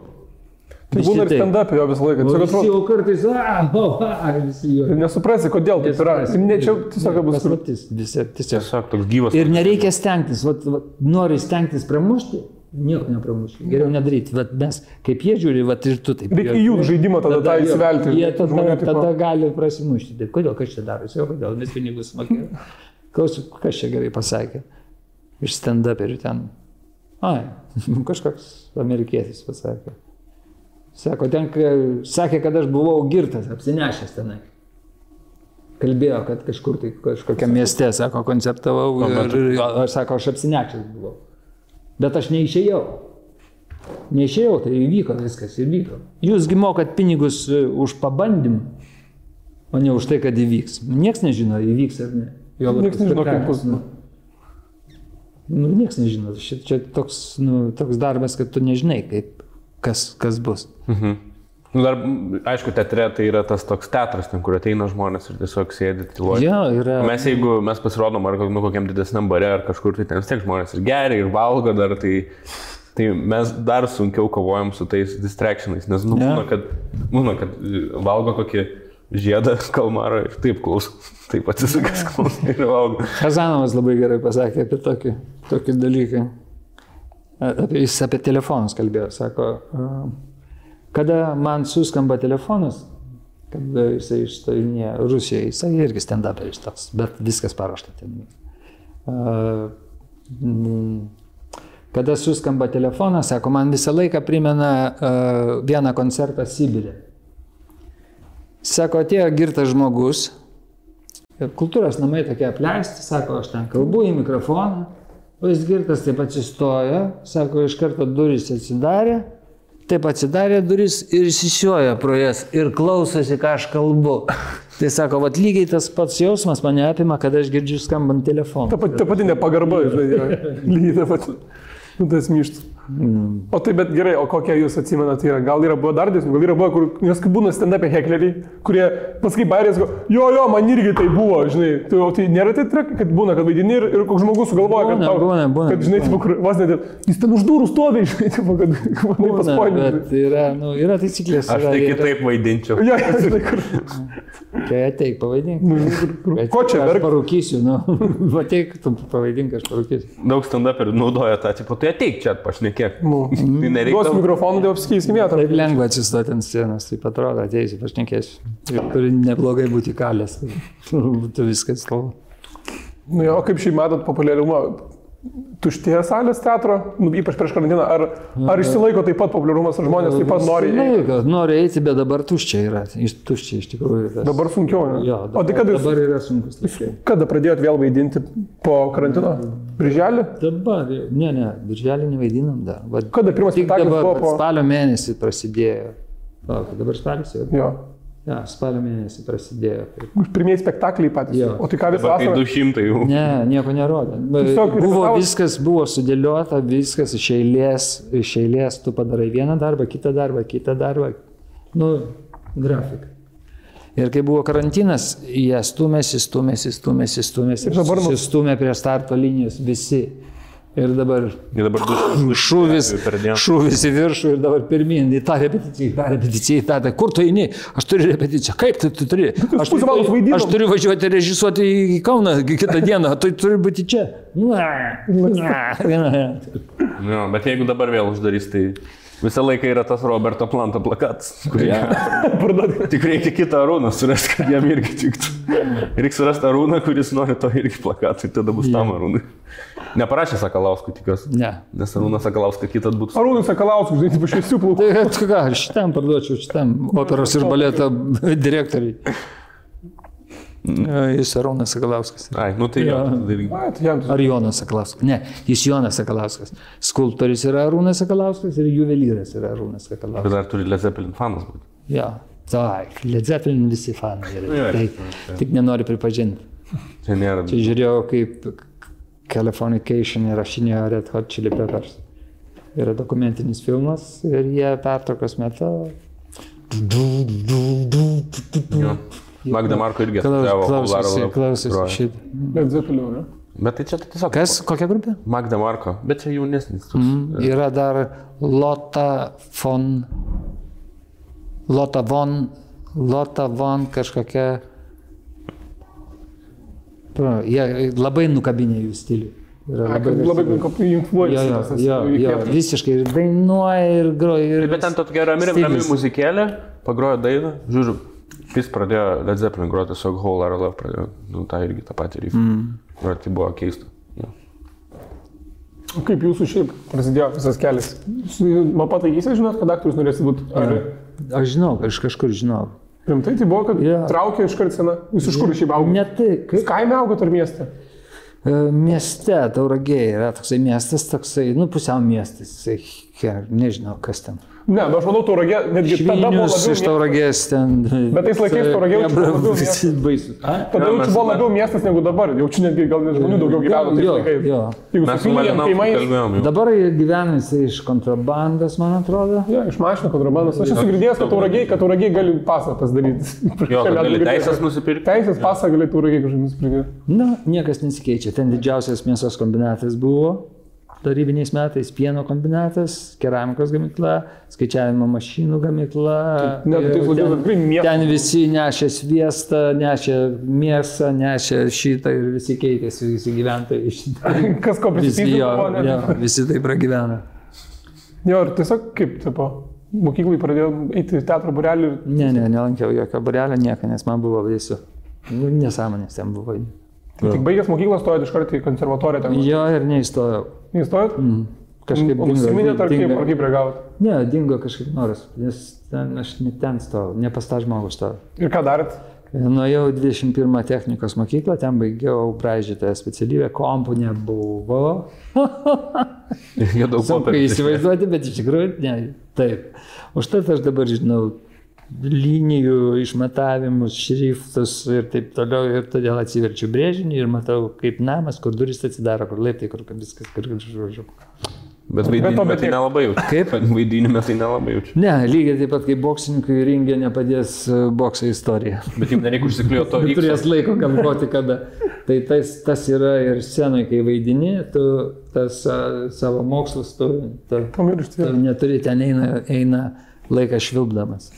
Tai būna ir stand-up jo visą laiką. Visi jau kartais, visi jo. Nesuprasi, kodėl taip yra. Čia tiesiog bus paslaptis. Tiesiog toks gyvas. Ir nereikia stengtis. Nori stengtis pramušti, nieko nepramušti. Geriau nedaryti. Mes, kaip jie žiūri, ir tu taip. Reikia jų žaidimą tada įsivelti. Jie tada gali prasimušti. Taip, kodėl, kas čia darosi? Kodėl, mes pinigus mokėjome. Klausiu, kas čia gerai pasakė. Iš stand-uperių ten. Kažkoks amerikietis pasakė. Sako, sakė, kad aš buvau girtas, apsinešęs tenai. Kalbėjo, kad kažkur tai kažkokiam mieste, sako, koncertavau ir aš sako, aš apsinešęs buvau. Bet aš neišėjau. Neišėjau, tai įvyko viskas, įvyko. Jūsgi mokat pinigus už pabandymą, o ne už tai, kad įvyks. Niekas nežino, įvyks ar ne. Niekas nežino, kaip bus. Niekas nežino. Čia toks darbas, kad tu nežinai, kas bus. Dar, aišku, teatre tai yra tas toks teatras, ten, kur ateina žmonės ir tiesiog sėdi tyluoja. Yra. Jeigu mes pasirodom ar kokiam didesniam bare ar kažkur, tai ten vis tiek žmonės ir geria, ir valgo dar, tai mes dar sunkiau kovojam su tais distractionais, nes būna, kad valgo kokį žiedą kalmarą ir taip klauso, taip atsisukęs klauso ir valgo. Kazanovas labai gerai pasakė apie tokį dalyką. Jis apie telefonus kalbėjo, sako, kada man suskamba telefonas, kada jisai išstojinėja Rusijoje, jisai irgi stand-uperis toks, bet viskas paruošta ten. Kada suskamba telefonas, sako, man visą laiką primena vieną koncertą Sibire. Sako, atėjo girtas žmogus, kultūros namai tokie apleisti, sako, aš ten kalbu į mikrofoną, o jis girtas taip atsistojo, sako, iš karto durys atsidarė, taip atsidarė duris ir įsisioja pro jas ir klausosi, ką aš kalbu. Tai sako, vat lygiai tas pats jausmas mane apima, kad aš girdžiu skambant telefoną. Ta pati nepagarba, žinai, lygiai ta pati. Tas myštas. O tai bet gerai, o kokie jūs atsimenate yra? Gal yra buvo dar dėsnių, gal yra buvo, nes kaip būna stand-up'e hekleriai, kurie paskui bairės go, jo, man irgi tai buvo, žinai, tai nėra tai trek, kad būna, kad vaidini ir koks žmogus sugalvoja, kad žinai, vos net, jis ten už durų stovi, žinai, kad manai paspoinė. Bet yra taisyklės. Aš tai kitaip vaidinčiau. Jo, žinai, kur. Tai ateik, pavaidink. Ko čia verk? Aš parūkysiu, ateik, tu pavaidink, aš parūkysiu. Daug stand-uperių naudoja tą, tipo, tai ateik čia pašnekėk. Tai nereikia. Duos mikrofoną, tai apsikeiskime vietą. Taip lengva atsistoti ant scenos, taip atrodo, ateisi, pašnekėsiu. Turi neblogai būti kalės, būtų viskas kalba. O kaip šiai matot populiarumą? Tuštėja salės teatro, ypač prieš karantiną, ar išsilaiko taip pat populiarumas, ar žmonės taip pat nori eiti? Nori eiti, bet dabar tuščia yra, tuščia iš tikrųjų. Dabar sunkiau, ne? Jo, dabar yra sunkus. Kada pradėjot vėl vaidinti po karantino? Birželį? Dabar, ne, birželį nevaidinam dar. Kada pirmas spektaklis buvo po... Spalio mėnesį prasidėjo. Dabar spalis jau? Jo. Ja, spalio mėnesį prasidėjo. Pirmieji spektakliai patys. Jo. O tai ką visą vasarą? 200 jau. Ne, nieko nerodė. Viskas buvo sudėliota, viskas iš eilės, tu padarai vieną darbą, kitą darbą. Grafika. Ir kai buvo karantinas, jie stumėsi. Ir dabar stumė prie starto linijos visi. Ir dabar šūvis į viršų ir dabar pirmin, į tą repeticiją, kur tu eini, aš turiu repeticiją, kaip tu turi, aš turiu važiuoti režisuoti į Kauną kitą dieną, tai turi būti čia. Bet jeigu dabar vėl uždarys, tai visą laiką yra tas Roberto Planto plakatas, tik reikia kitą Arūną surasti, kad jam irgi tiktų. Reikia surasti Arūną, kuris nori to irgi plakatui, tada bus tam Arūnai. Neparašė Sakalauskui, tikiuosi. Ne. Nes Arūnas Sakalauskas kitas būtų. Arūnas Sakalauskui, žinai, tipo šviesių plaukų. Tai ką, šitam parduočiau, šitam operos ir baleto direktoriai. Jis Arūnas Sakalauskas. Ai, tai jo. Ar Jonas Sakalauskas? Ne, jis Jonas Sakalauskas. Skulptorius yra Arūnas Sakalauskas ir juvelyras yra Arūnas Sakalauskas. Bet dar turi Led Zeppelin fanas būti. Jo, taip, Led Zeppelin visi fanai yra. Tik nenori pripažinti. Čia žiūrėjau, kaip Californication įrašinėjo Red Hot Chili Peppers. Yra dokumentinis filmas ir jie pertraukos metu. Magda Marko irgi klausosi šitą. Led Zeppelin, ne? Bet tai čia tiesiog... Kas? Kokia grupė? Magda Marko, bet čia jaunesnis. Yra dar Lotta von kažkokia... Jie labai nukabinė jų stilių. Labai influenceris. Jo, visiškai ir dainuoja, ir groja. Bet ten tokia rami muzikėlė, pagrojo dainą, žiūriu, jis pradėjo Led Zeppelin groti, tiesiog Whole Lotta Love pradėjo, tą irgi tą patį riffą. Tai buvo keista. Kaip jūsų šiaip prasidėjo visas kelias? Man pataikysi, žinot, kad aktorius norėsi būti? Aš žinau, aš kažkur žinau. Rimtai tai buvo, kad traukė iškart sena. Jūs iš kur šiaip augot? Ne tai. Kaime augot ar mieste? Mieste, Tauragėje yra toksai miestas, pusiau miestas. Nežinau, kas ten. Ne, bet aš manau, Tauragė, netgi tada buvo Švinius iš Tauragės ten. Bet tais laikais Tauragė jau labiau visi baisus. Tada jau buvo labiau miestas negu dabar. Jau čia netgi gal žmonių daugiau gyveno tais laikais. Jeigu mes su Malinausku kalbėjom. Dabar gyvena jisai iš kontrabandos, man atrodo. Jo, iš mašinų kontrabandos. Aš esu girdėjęs, kad Tauragė gali pasą pasidaryti. Jo, gali teisės nusipirkti. Teisės pasą gali Tauragė kažkaip nusipirkti. Na, niekas nesikeičia. Ten didžiausias mėsos kombinatas buvo. Tarybiniais metais pieno kombinatas, keramikos gamykla, skaičiavimo mašinų gamykla. Ten visi nešė sviestą, nešė mėsą, nešė šitą ir visi keitėsi, visi gyventojai šitą. Kas ko prisipildė? Visi taip pragyvena. Jo, ir tiesiog kaip, tipo, mokyklai pradėjau eiti į teatro būrelį? Ne, nelankiau jokio būrelio, nieko, nes man buvo baisu. Nesąmonės ten buvo. Tik baigęs mokyklą stojot iš karto į konservatoriją ten? Jo, ir neįstojau. Neįstojot? Kažkaip dingo. Užsiminėt ar kaip reagavot? Ne, dingo kažkaip noras, nes aš ne ten stojau, ne pas tą žmogų stojau. Ir ką darėt? Nuėjau 21 technikos mokyklą, ten baigiau braižytoją specialybę, kompų nebuvo. Sunku įsivaizduoti, bet iš tikrųjų ne, taip. Užtat aš dabar žinau linijų, išmatavimus, šriftus ir taip toliau, ir todėl atsiverčiu brėžinį ir matau, kaip namas, kur durys atsidaro, kur laiptai, kur viskas, kur žodžiu. Bet vaidinime tai nelabai jaučiu. Kaip? Vaidinime tai nelabai jaučiu. Ne, lygiai taip pat kaip boksininkui ringė nepadės bokso istorija. Bet jums nereikia užsikliuoti to X. Turės laiko galvoti kada. Tai tas yra ir scenoje, kai vaidini, tu tas savo mokslus, tu neturi, ten eina laikas švilpdamas.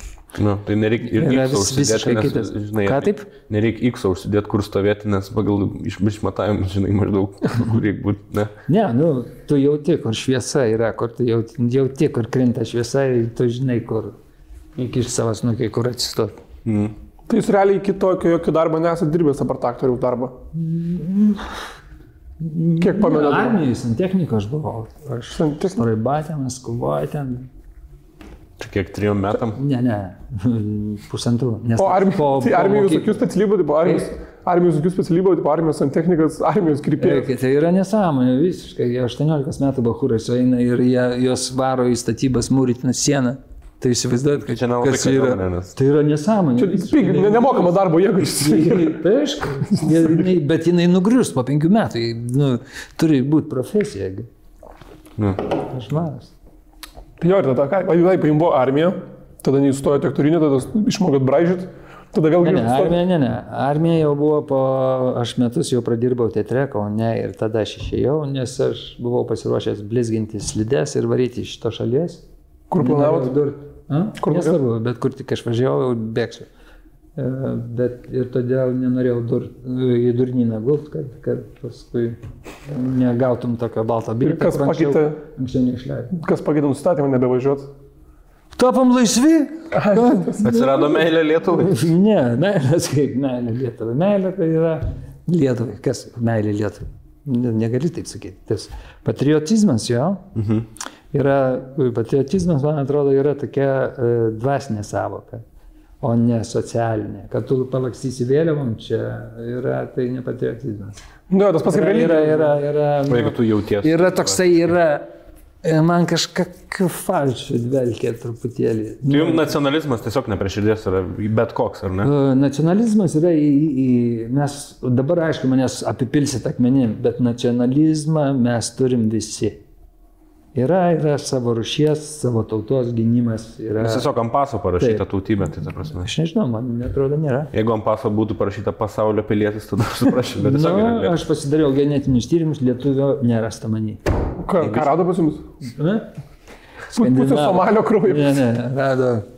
Nu, tai nereikia ir X užsidėti, nes, žinai, ką taip? Nereikia X užsidėti, kur stovėti, nes pagal išmatavimus, žinai, maždaug, kur reikia būti, ne? Ne, nu, tu jauti, kur šviesa yra, kur tu jauti, kur krinta šviesa ir tu žinai, kur iki savo snukiai, kur atsistoti. Tai jūs realiai iki tokio jokio darbo nesate dirbęs apart aktoriaus darbo? Kiek pamenat? Armijai, santechnika aš buvau. Aš Raibatė, Maskvoje ten. Čia kiek 3 metam? Ne, 1,5. O armijos tokių specialybių, tipo armijos santechnikas, armijos krypėjas. Tai yra nesąmonė visiškai. 18 metų bachūrai sueina ir jos varo į statybas mūrytiną sieną. Tai įsivaizduojat, kad kas yra. Tai yra nesąmonė. Čia nemokama darbo jėga. Tai aišku, bet jinai nugrius po 5 metų. Nu, turi būti profesija. Aš maras. Tai jo, ir tada ką, jums buvo armija, tada neįstojote aktorinį, tada išmokot braižyti, tada vėl grįžti. Ne. Armija jau buvo aš metus jau pradirbau teatre, Kaune ir tada aš išėjau, nes aš buvau pasiruošęs blizginti slides ir varyti iš šito šalies. Kur planavot? Nesvarbu, bet kur tik aš važiavau, bėgsiu. Bet ir todėl nenorėjau į durnyną gult, kad paskui negautum tokio balto bilieto. Kas pakeitė? Anksčiau neišleidau. Kas pakeitė nustatymą nebevažiuot? Tapom laisvi? Atsirado meilė Lietuvai? Ne, meilės kaip meilė Lietuvai. Meilė tai yra Lietuvai. Kas meilė Lietuvai? Negali taip sakyti. Tas patriotizmas jo. Patriotizmas, man atrodo, yra tokia dvasinė savoka, o ne socialinė. Kad tu palakstysi vėliavom, čia yra, tai ne patriotizmas. Nu, tas pats kaip religija. Jeigu tu jautiesi. Yra toksai, man kažkokiu falšu dvelkia truputėlį. Tai jums nacionalizmas tiesiog ne prie širdies yra bet koks, ar ne? Nacionalizmas yra mes dabar, aišku, manęs apipilsit akmenim, bet nacionalizmą mes turim visi. Yra savo rūšies, savo tautos gynimas. Nes tiesiog ant paso parašyta tautybė, tai ta prasme. Aš nežinau, man atrodo nėra. Jeigu ant paso būtų parašyta pasaulio pilietis, tada suprašau, bet tiesiog yra lietuvis. Aš pasidariau genetinius tyrimus, lietuvio nerasta manį. Ką rado pas jums? Pusė Somalio kraujo. Ne, rado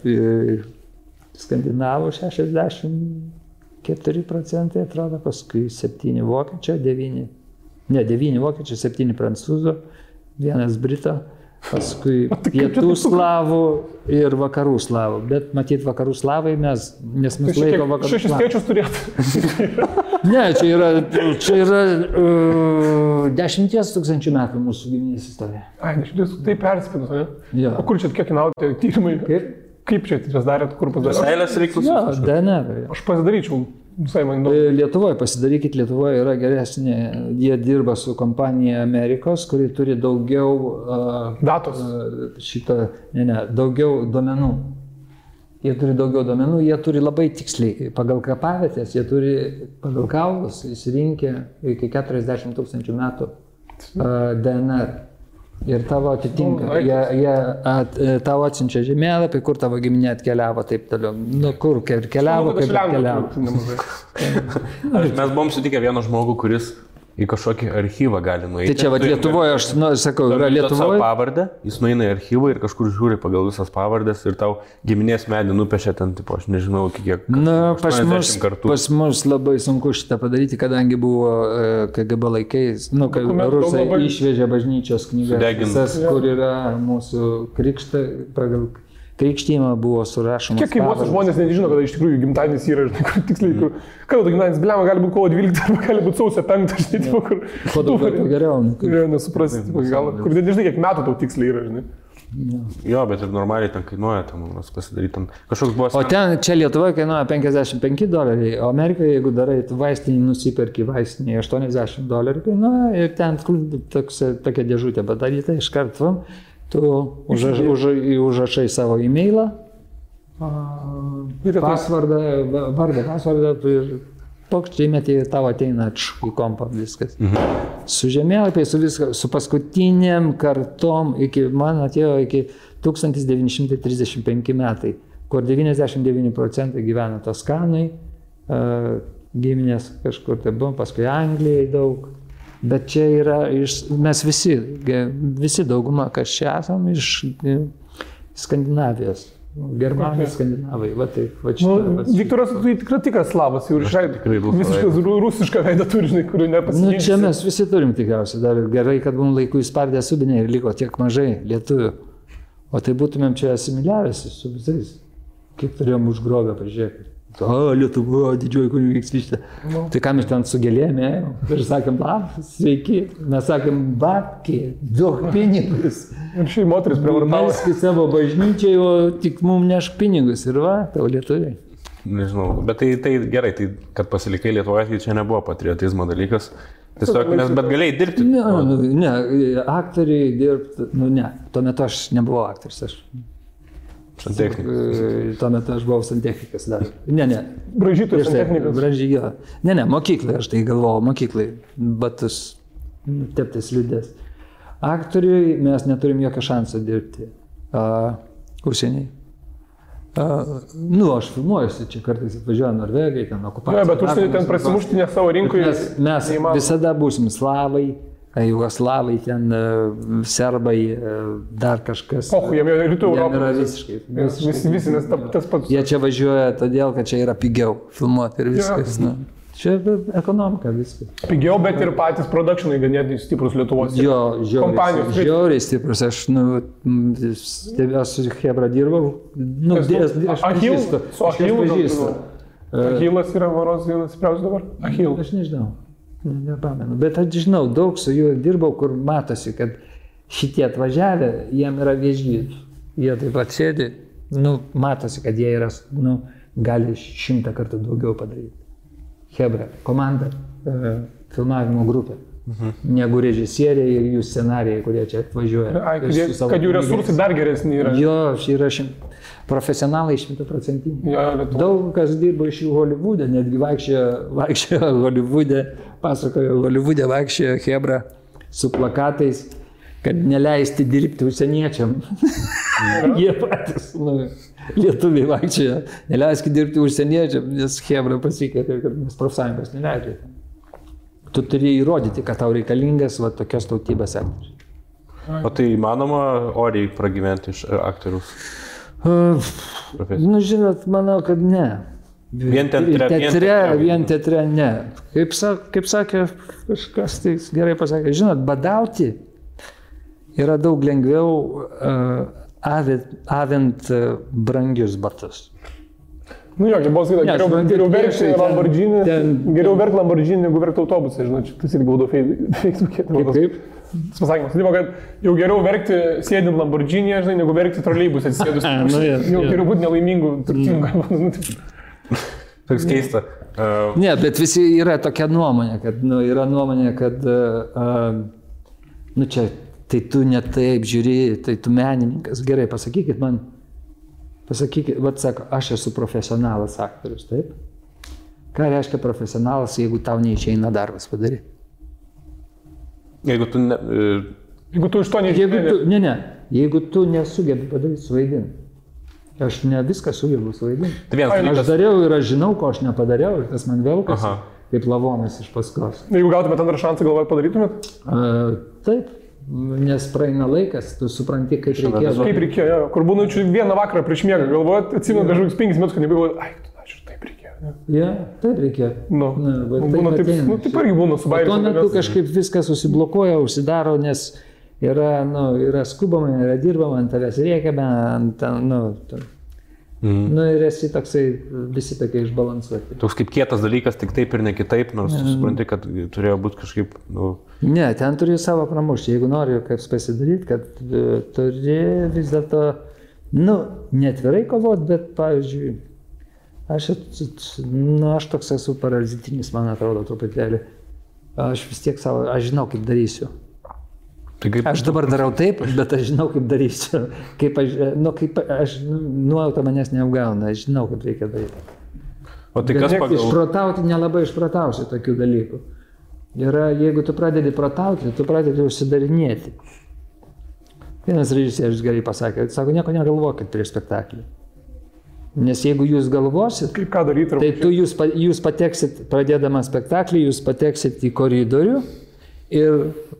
skandinavų 64%, atrodo, paskui 7 vokiečio, 9 vokiečio, 7 prancūzų. 1 brito, paskui pietų slavų ir vakarų slavų. Bet matyt, vakarų slavai nes mes laiko vakarų slavų. 6 skaičius turėtų. Ne, čia yra 10 000 metų mūsų giminės istorija. Ai, 10 tai perspinus, ne? Jo. O kur čia kiek naudote tyrimai? Kaip čia tas darėt, kur pasidarėt? Seilės reiklus? Jo, DNR. Aš pasidaryčiau. Visai man įdomu. Lietuvoje, pasidarykit, Lietuvoje yra geresnė, jie dirba su kompanija Amerikos, kuri turi daugiau Datos. Daugiau duomenų. Jie turi daugiau duomenų, jie turi labai tiksliai, pagal kapavietės, jie turi pagal kaulus įsirinkę iki 40 000 metų DNR. Ir tavo atitinka, jie tavo atsiunčia žemėlapį, kur tavo giminė atkeliavo, taip toliau. Nu, kur keliavo, kaip atkeliavo. Mes buvom sutikę vieną žmogų, kuris į kažkokį archyvą gali nueiti. Tai čia va Lietuvoje, aš sakau, yra Lietuvoje. Pavardę, jis nueina į archyvą ir kažkur žiūri pagal visas pavardės ir tau giminės medį nupiešia ten, tipo, aš nežinau, kiek. Na, pas mus labai sunku šitą padaryti, kadangi buvo KGB laikais, kai rusai išvežė bažnyčios knygas, visas, kur yra mūsų krikštą, pagal krikštymą buvo surašomas. Kiek kaimuose žmonės nežino, kad iš tikrųjų gimtadienis yra, kur tiksliai, kada gimtadienis, blema, gali būti kovo 12 arba gali būti sausio 5, žinai, kur... Kuo daugiau geriau. Geriau nesuprasti, kur nežinai, kiek metų tau tiksliai yra, žinai. Jo, bet ir normaliai ten kainuoja, ten mums pasidaryti, ten kažkoks buvo... O ten, čia Lietuvoje kainuoja $55, o Amerikoje, jeigu darai vaistinį, nusiperki vaistinį, $80 kainuoja ir ten tokia dėžutė padaryta iš karto. Tu užrašai savo e-mailą, pasvardą, pasvardą ir pokščiai metį tavo ateina į kompą viskas. Su žemėlapiai, su paskutiniam kartom, man atėjo iki 1935 metai, kur 99% gyvena Toskanai, giminės kažkur tai buvom, paskui Anglijai daug. Bet čia yra mes visi dauguma, kas čia esam, iš Skandinavijos. Germanai, skandinavai, va taip, va čia. Viktoras, tu tikrai tikras slavas, jau išraidai. Visiškai rusišką veidą turi, žinai, kurių nepasirinksi. Čia mes visi turim tikriausiai, dar gerai, kad mums laiku įspardė subinė ir liko tiek mažai lietuvių. O tai būtumėm čia asimiliavęsi su visais. Kiek turėjom užgrobę, pažiūrėkit. Lietuva, didžioji kunigaikštystė. Tai ką mes ten su gėlėm ėjom? Ir sakėm, sveiki. Mes sakėm, babki, duok pinigus. Ir šį moteris prievartavo. Melski savo bažnyčiai, o tik mums nešk pinigus. Ir va, tau lietuviai. Nežinau, bet tai gerai, tai kad pasilikai Lietuvoje, tai čia nebuvo patriotizmo dalykas. Tiesiog, bet galėjai dirbti. Ne, aktoriai dirbti, ne. Tuo metu aš nebuvau aktorius, aš. Santechnikas. Tuo metu aš buvau santechnikas dar. Ne. Bražytojas santechnikas. Bražyjo. Ne, mokyklai, aš tai galvojau, mokyklai. Batus, teptis liūdės. Aktoriui mes neturim jokio šanso dirbti. Užsieniai. Aš filmuojuosi, čia kartais atvažiuoja Norvegai, ten okupacija. Ne, bet užsieniai ten prasimušti ne savo rinkoje. Mes visada būsim slavai. Jugoslavai, ten serbai, dar kažkas. Jie rytų Europos. Yra visiškai. Visi, nes tas pats. Jie čia važiuoja todėl, kad čia yra pigiau filmuoti ir viskas. Čia ekonomika viskas. Pigiau, bet ir patys produkšinai ganėtinai stiprus Lietuvos. Jo, žiauriai stiprus. Aš su Hebra dirbau. Su Achilu. Achilas yra varos vienas stipriausias dabar. Achil. Aš nežinau. Nepamenu, bet aš žinau, daug su juo dirbau, kur matosi, kad šitie atvažiavę, jiem yra vėžys. Jie taip pat sėdi, matosi, kad jie yra, gali 100 kartų daugiau padaryti. Hebra, komanda, filmavimo grupė, negu režisieriai ir jų scenarijai, kurie čia atvažiuoja. Kad jų resursai dar geresni yra. Jo, yra profesionalai 100%. Daug kas dirbo iš jų Holivude, netgi vaikščiojo Holivude, pasakojo Holivude, vaikščiojo Hebra su plakatais, kad neleisti dirbti užsieniečiam. Jie patys, lietuviai vaikščiojo, neleiskit dirbti užsieniečiam, nes Hebra pasikeitė, kad mes profsąjungos neleidžia. Tu turi įrodyti, kad tau reikalingas tokios tautybės aktorius. O tai įmanoma oriai pragyventi iš aktorius? Žinot, manau, kad ne. Vien teatre ne. Kaip sakė kažkas, tai gerai pasakė, žinot, badauti yra daug lengviau avint brangius batus. Kaip buvo sakyti, geriau verkti Lamborghini, negu verkti autobusą, žinot, tas irgi būdavo Facebook'e. Kaip? Tas pasakymas, kad jau geriau verkti sėdint Lamborghini'e, žinai, negu verkti troleibuse atsisėdus. Jau geriau būti nelaimingu, turtingu. Toks keista. Ne, bet visi yra tokia nuomonė, kad, čia, tai tu ne taip žiūri, tai tu menininkas. Gerai, pasakykit, sako, aš esu profesionalas aktorius, taip? Ką reiškia profesionalas, jeigu tau neišeina darbas padaryti? Jeigu tu iš to neišeina. Jeigu tu nesugebi padaryti suvaidinti. Aš ne viską sugebu suvaidinti. Aš dariau ir aš žinau, ko aš nepadariau ir tas man velkasi, kaip lavonas iš paskos. Jeigu gautumėt antrą šansą, galvojat padarytumėt? Taip, nes praeina laikas, tu supranti, kaip reikėjo. Kaip reikėjo, kur būna vieną vakarą prieš miegą, galvojat, atsimenu kažkokius 5 metus, kad nebegavau, aš ir taip reikėjo. Taip reikėjo. Taip irgi būna su bairiu. Tuo metu kažkaip viskas susiblokuoja, užsidaro, nes yra skubama, yra dirbama, ant tavęs rėkiame, ir esi toksai, visi tokie išbalansuoti. Toks kaip kietas dalykas, tik taip ir ne kitaip, nors supranti, kad turėjo būti kažkaip, Ne, ten turi savo pramušti, jeigu nori kaip pasidaryti, kad turi vis dėlto, netvirai kovoti, bet, pavyzdžiui, aš toks esu parazitinis, man atrodo, truputėlį. Aš vis tiek aš žinau, kaip darysiu. Aš dabar darau taip, bet aš žinau, kaip darysiu. Nuojauta manęs neapgauna, aš žinau, kaip reikia daryti. O tai kas pagal... Išprotauti nelabai išprotausi tokių dalykų. Jeigu tu pradedi protauti, tu pradedi užsidarinėti. Vienas režisierius gerai pasakė, sako, nieko negalvokit prieš spektaklį. Nes jeigu jūs galvosit, kaip ką daryti, tai jūs pateksit, pradėdama spektaklį, jūs pateksit į koridorių ir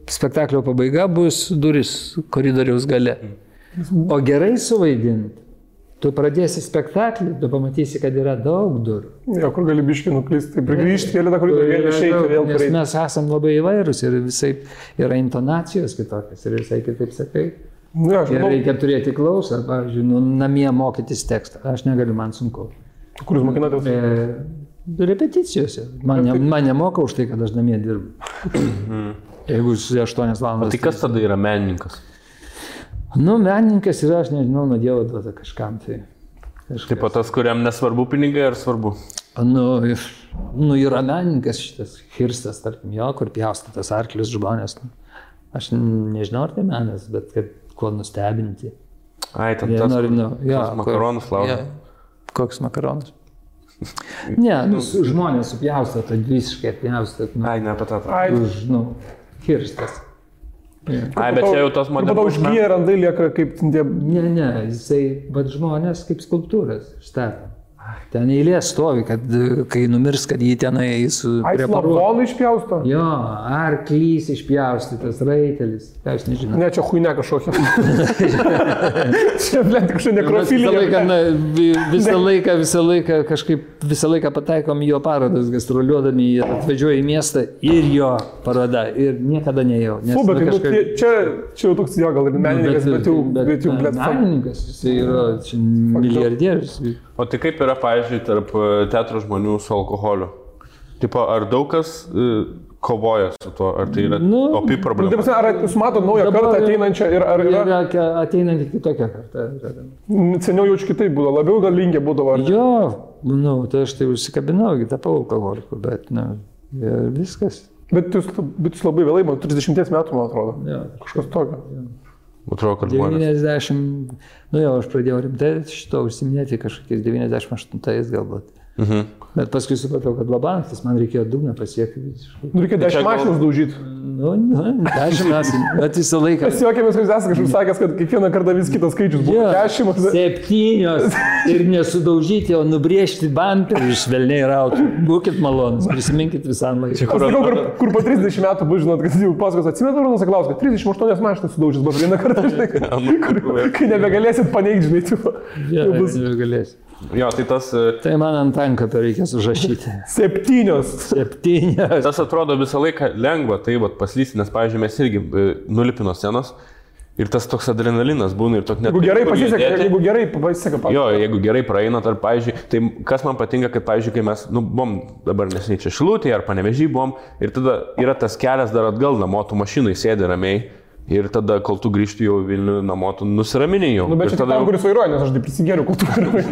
spektaklio pabaiga bus duris koridoriaus gale. O gerai suvaidinti, tu pradėsi spektaklį, tu pamatysi, kad yra daug durų. Kur gali biškį nuklysti, tai prigrįžti kelią tą koridorių, vėl išeiti, vėl prieiti. Nes mes esam labai įvairūs ir visai yra intonacijos kitokios ir visai kitaip sakai. Ir reikia turėti klausą, pavyzdžiui, namie mokytis tekstą. Aš negaliu, man sunku. Kur jūs mokinatės? Repeticijose. Man nemoka už tai, kad aš namie dirbu. Jeigu 8 valandas. O tai kas tada yra menininkas? Menininkas yra, aš nežinau, nuo Dievo duota kažkam. Taip pat tas, kuriam nesvarbu pinigai, ar svarbu? Yra menininkas šitas Hirstas, tarkim, kur pjaustytas arklius žmonės. Aš nežinau, ar tai menas, bet kad kuo nustebinti. Ai, ten tas makaronus laužo. Koks makaronas? Ne, žmonės supjaustą, tai visiškai apjaustą. Ai, ne apie tą. Hirstas. Ai, bet čia jau tos modelis. Tada užgyja randai lieka kaip tie... Ne, jisai, bet žmonės kaip skulptūras štata. Ten eilė stovi, kad kai numirs, kad jį tenai preparuoja. Slavonų išpjausto? Jo, arklys išpjaustytas, raitelis. Ką aš nežinau. Ne, čia chuйня kažkokia. Čia, blėt, kažkokia nekrofilija. Visą laiką pataikom į jo parodas, gastroliuodami, atvažiuoja į miestą ir jo paroda. Ir niekada neėjau. Čia jau toks jo gal ir menininkas, bet jau blėt. Menininkas, jis yra milijardierius. O tai kaip yra, pavyzdžiui, tarp teatro žmonių su alkoholiu? Tipo, ar daug kas kovoja su tuo, ar tai yra opi problema? Ar jūs matot naują kartą ateinančią ir ar yra... Ateinantį kitokią kartą. Seniau jaučiu kitaip būdavo, labiau gal linkė būdavo. Jo, tai aš tai užsikabinau, tapau alkoholiku, bet viskas. Bet jūs labai vėlai, 30 metų, man atrodo. Kažkas tokio. Atrodo, kad žmonės. 90, aš pradėjau rimtai šito užsiminėti kažkokiais 98 galbūt. Bet paskui supratau, kad labantis, man reikėjo dugną pasiekti. Reikėjo 10 mašinus daužyti. 10 mašinų, bet visą laiką. Mes juokėmės, kad jūs esate kažkaip sakęs, kad kiekvieną kartą vis kitas skaičius buvo 10. 7 ir nesudaužyti, o nubrėžti bamperį iš velniai rautų. Būkit malonus, prisiminkit visam laiką. Aš sakau, kur po 30 metų bus, žinot, kad jau pasakos, atsimenat, Arūnas Saklauskas, 38 mašinas sudaužys, buvo vieną kartą, žinai, kai nebegalėsit paneigti, žinai, tipo. Nebegalėsit. Jo, tai tas... Tai man ant tankapio reikės užrašyti. 7. Tas atrodo visą laiką lengva, tai paslysti, nes, pavyzdžiui, mes irgi nulipino scenos ir tas toks adrenalinas būna ir toks net... Jeigu gerai pasiseka. Jo, jeigu gerai praeina, ar, pavyzdžiui, tai kas man patinka, kad, pavyzdžiui, kai mes, buvom dabar nesiniai čia Šilutėje ar Panevėžy buvom ir tada yra tas kelias dar atgal namo, tu mašinai sėdi ramiai. Ir tada, kol tu grįžti jau Vilnių namo, tu nusiraminėjai jau. Nu, bet čia tam, kuris vairuoja, nes aš taip prisigėriau, kol tu vairuoji.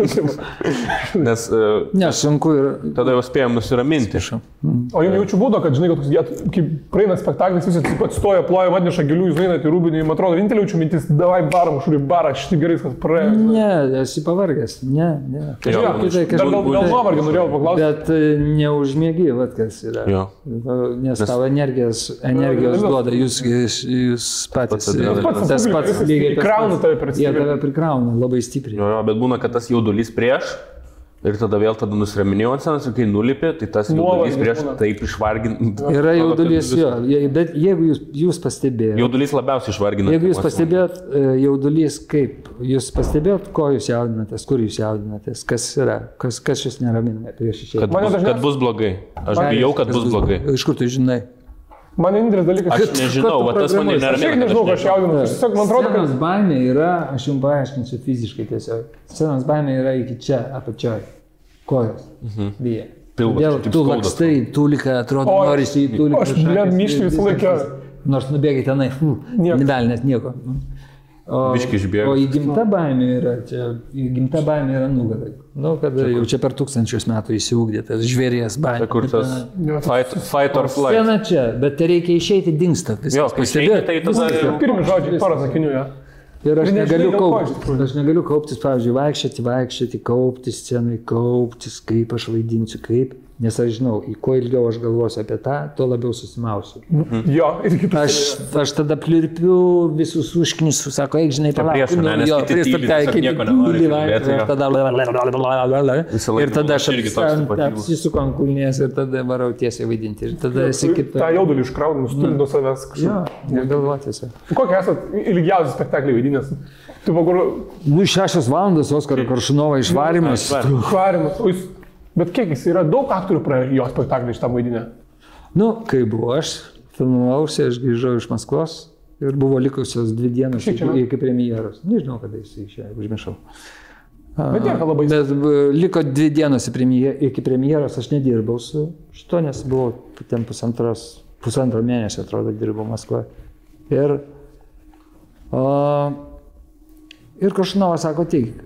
Nes sunku ir... tada jau spėjom nusiraminti. O jums jaučiu būdo, kad, žinai, kaip praeina spektaklis, visi atstoja, ploja, atneša gėlių, jūs einate į Rūbinį, man atrodo, vienintelė jaučiu mintis, davai baram, šuri barą, šitai gerai, kas praėjo. Ne, esi pavargęs, ne. Dar gal nuovargį norėjau paklausti. Bet neužmėgi, vat kas yra. Nes tavo energijos duoda, jūs patys. Tas pats lygiai. Prikrauna tave per stipriai. Jie tave prikrauna labai stipriai. Jo, bet būna, kad tas jaudulys prieš ir tada vėl nusiraminėjau ant scenos ir kai nulipė, tai tas jaudulys prieš taip išvargina. Yra jaudulys, jo. Bet jeigu jūs pastebėjote. Jaudulys labiausiai išvargina. Jeigu jūs pastebėjot jaudulys kaip, jūs pastebėjot, ko jūs jaudinatės, kur jūs jaudinatės, kas yra, kas jūs neramina prieš išėjimą. Kad bus blogai. Aš bijau, kad bus blogai. Iš kur tu žinai? Man vienintelis dalykas, aš nežinau, va tas mane neramina. Aš nežinau, ką aš jaudinu. Man atrodo, kad scenos baimė yra, aš jums paaiškinsiu fiziškai tiesiog. Scenos baimė yra iki čia, apačioj. Kojos. Vyja. Todėl tu lakstai, tūlika, atrodo, norisi į tūliką. Aš myšti visą laiką. Nors nubėgai tenai, nedalinės nieko. O įgimta baimė yra nugarai. Nu, kada jau čia per 1000 metų įsiugdė tas žvėries baimė. Kur tas fight or flight. Scena čia, bet tai reikia išeiti, dingsta viskas. Pastebėjote, tai tada... Pirmi žodžiai, porą sakinių, ja. Ir aš negaliu kauptis, pavyzdžiui, vaikščioti, kauptis scenai, kauptis, kaip aš vaidinsiu, kaip. Nes aš žinau, kuo ilgiau aš galvosiu apie tą, tuo labiau susimausiu. Jo, ir kitas. Aš tada plirpiu visus užknisus, sako, eik, žinai, palauk. Ir tada aš apsisuku ant kulnės ir tada varau tiesiai vaidinti. Ir tada esi kitą. Ta jaudulį iškraunu, nustumi nuo savęs kažkaip. Jo, negalvoti. Kokie esat ilgiausias spektaklį vaidinęs? Nu, 6 valandas Oskaro Koršunovo išvarymas. Bet kiek jis yra, daug aktorių praėjo jo spektaklį iš tą vaidinę? Nu, kai buvo aš, filmavausi, aš grįžau iš Maskvos ir buvo likusios 2 dienos iki premjeros. Nežinau, kada jis išėjo, užmiršau. Bet nieko labai. Bet liko 2 dienos iki premjeros, aš nedirbau su šito, nes buvau ten pusantro mėnesio, atrodo, dirbau Maskvoje. Ir Koršunovas sako, teik.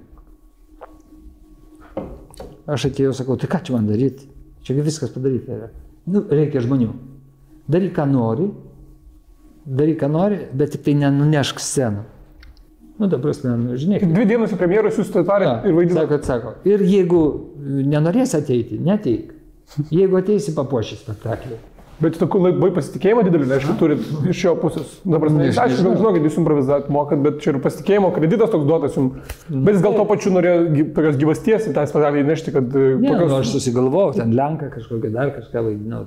Aš atėjau, sakau, tai ką čia man daryti? Čia viskas padaryta yra. Nu, reikia žmonių. Daryk, ką nori, bet tik tai nenunešk sceną. Nu, ta prasme, žinai. 2 dienos į premjerus jūs tarėt ir vaidinat. Sako. Ir jeigu nenorės ateiti, neteik. Jeigu ateisi, papuoši spektaklį. Bet tu labai pasitikėjimo didelį, aišku, turit iš jo pusės. Dabar, aš žinau, kad jūs improvizuot mokat, bet čia ir pasitikėjimo kreditas toks duotas jums. Bet jis gal to pačiu norėjo tokios gyvasties į tą spektaklį įnešti, kad... Ne, aš susigalvojau, ten Lenką kažkokią, dar kažką vaidinau,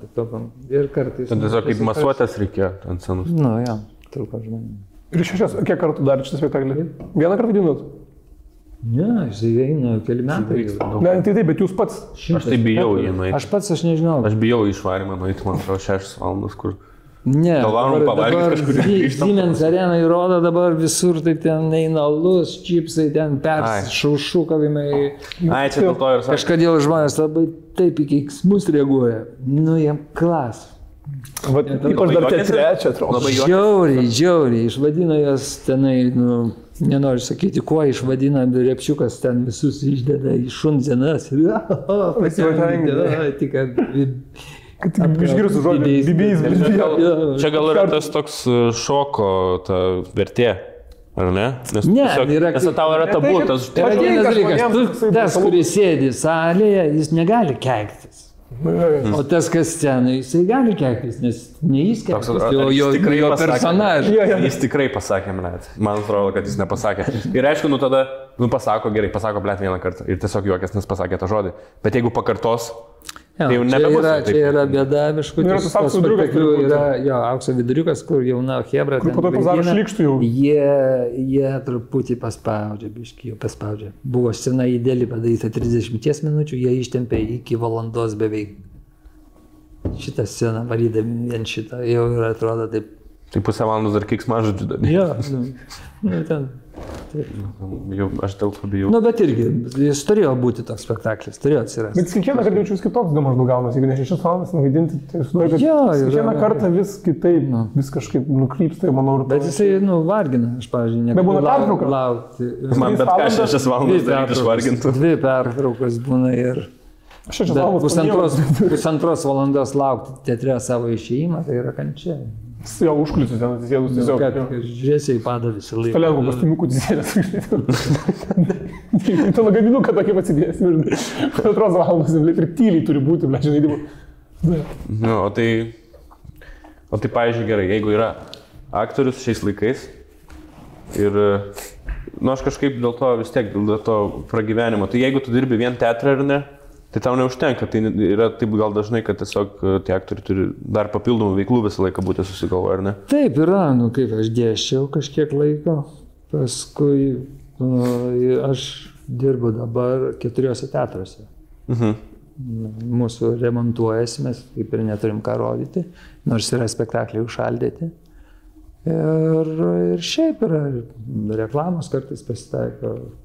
ir kartais... Ten tiesiog kaip masuotės reikėjo ant scenos. Nu, jo, truko žmonių. Ir kiek kartų dar šitą spektaklį? Vieną kartą vaidinot? Ne, jis eina keli metai. Ne, tai taip, bet jūs pats. Aš tai bijau jį nueiti. Aš nežinau. Aš bijau išvarimą nueiti, man atrodo, 6 valandas, kur... Ne, dabar Siemens Arena įrodo dabar visur, tai ten eina alus, čipsai, ten šaušukavimai. Ai, čia dėl to ir sakė. Kažkodėl žmonės labai taip į keiksmus reaguoja. Nu, jam klas. Ypač dar tie trečia, atrodo. Žiauriai, išvadino jas tenai, nu, nenoriu sakyti, kuo išvadina, Repšiukas ten visus išdeda į šundzienas. Išgirstų žodį, bibijais. Čia gal yra tas toks šoko vertė, ar ne? Nes tau yra tabu, tas... Tas, kuris sėdi salėje, jis negali keiktis. O tas, kas scenai, jisai gali keiktis, nes ne jis keiktis, o jo personažas. Jis tikrai pasakė, man atrodo, kad jis nepasakė. Ir aišku, tada, pasako, gerai, pasako vieną kartą ir tiesiog juokės, nes pasakė tą žodį. Bet jeigu pakartos, tai jau nebebus. Čia yra bėda, viškutis, tas spektaklių yra aukso viduriukas, kur jauna hebra ten vaidina, jie truputį paspaudžia, biškį jau paspaudžia. Buvo scena ideali padaryta 30 minučių, jie ištempė iki valandos beveik. Šitą sceną varydami vien šitą, jau ir atrodo taip. Tai pusę valandos dar keiksmažodžių dar. Jo, ten Jau, aš dėl to bijau. Nu, bet irgi, jis turėjo būti toks spektaklis, turėjo atsirasti. Bet kiekvieną kartą jaučiu vis kitoks maždaug gaunas, jeigu ne 6 valandas nuvaidinti, tai sudarė, kad kiekvieną kartą vis kitaip, vis kažkaip nukrypsta, manau. Bet jisai, vargina, aš, pavyzdžiui, nebūna pertrauka. Laukti. Man bet ką 6 valandas daryti išvargintų. 2 pertraukos būna ir... 6 valandas. Pusantros valandos laukti teatre savo išėjimą, tai yra kančia. Jo užkuliusius ten atsisėdus tiesiog. Žiūrėsiai pada visą laiką. Toliau kostiumiukų atsisėdęs. Tu lagaminuką tokį atsidėsi. 2 valandas ir tyliai turi būti, žinai. Nu, o tai pavyzdžiui, gerai, jeigu yra aktorius šiais laikais ir, aš kažkaip dėl to vis tiek, dėl to pragyvenimo, tai jeigu tu dirbi vien teatrą ar ne, tai tau neužtenka, tai yra taip gal dažnai, kad tiesiog tie aktoriai turi dar papildomų veiklų visą laiką būti susigalvoję, ar ne? Taip yra, kaip aš dėsčiau kažkiek laiko, paskui aš dirbu dabar 4 teatruose. Mūsų remontuojasi, mes kaip ir neturim ką rodyti, nors yra spektakliai užšaldyti. Ir šiaip yra reklamos kartais pasitaiko.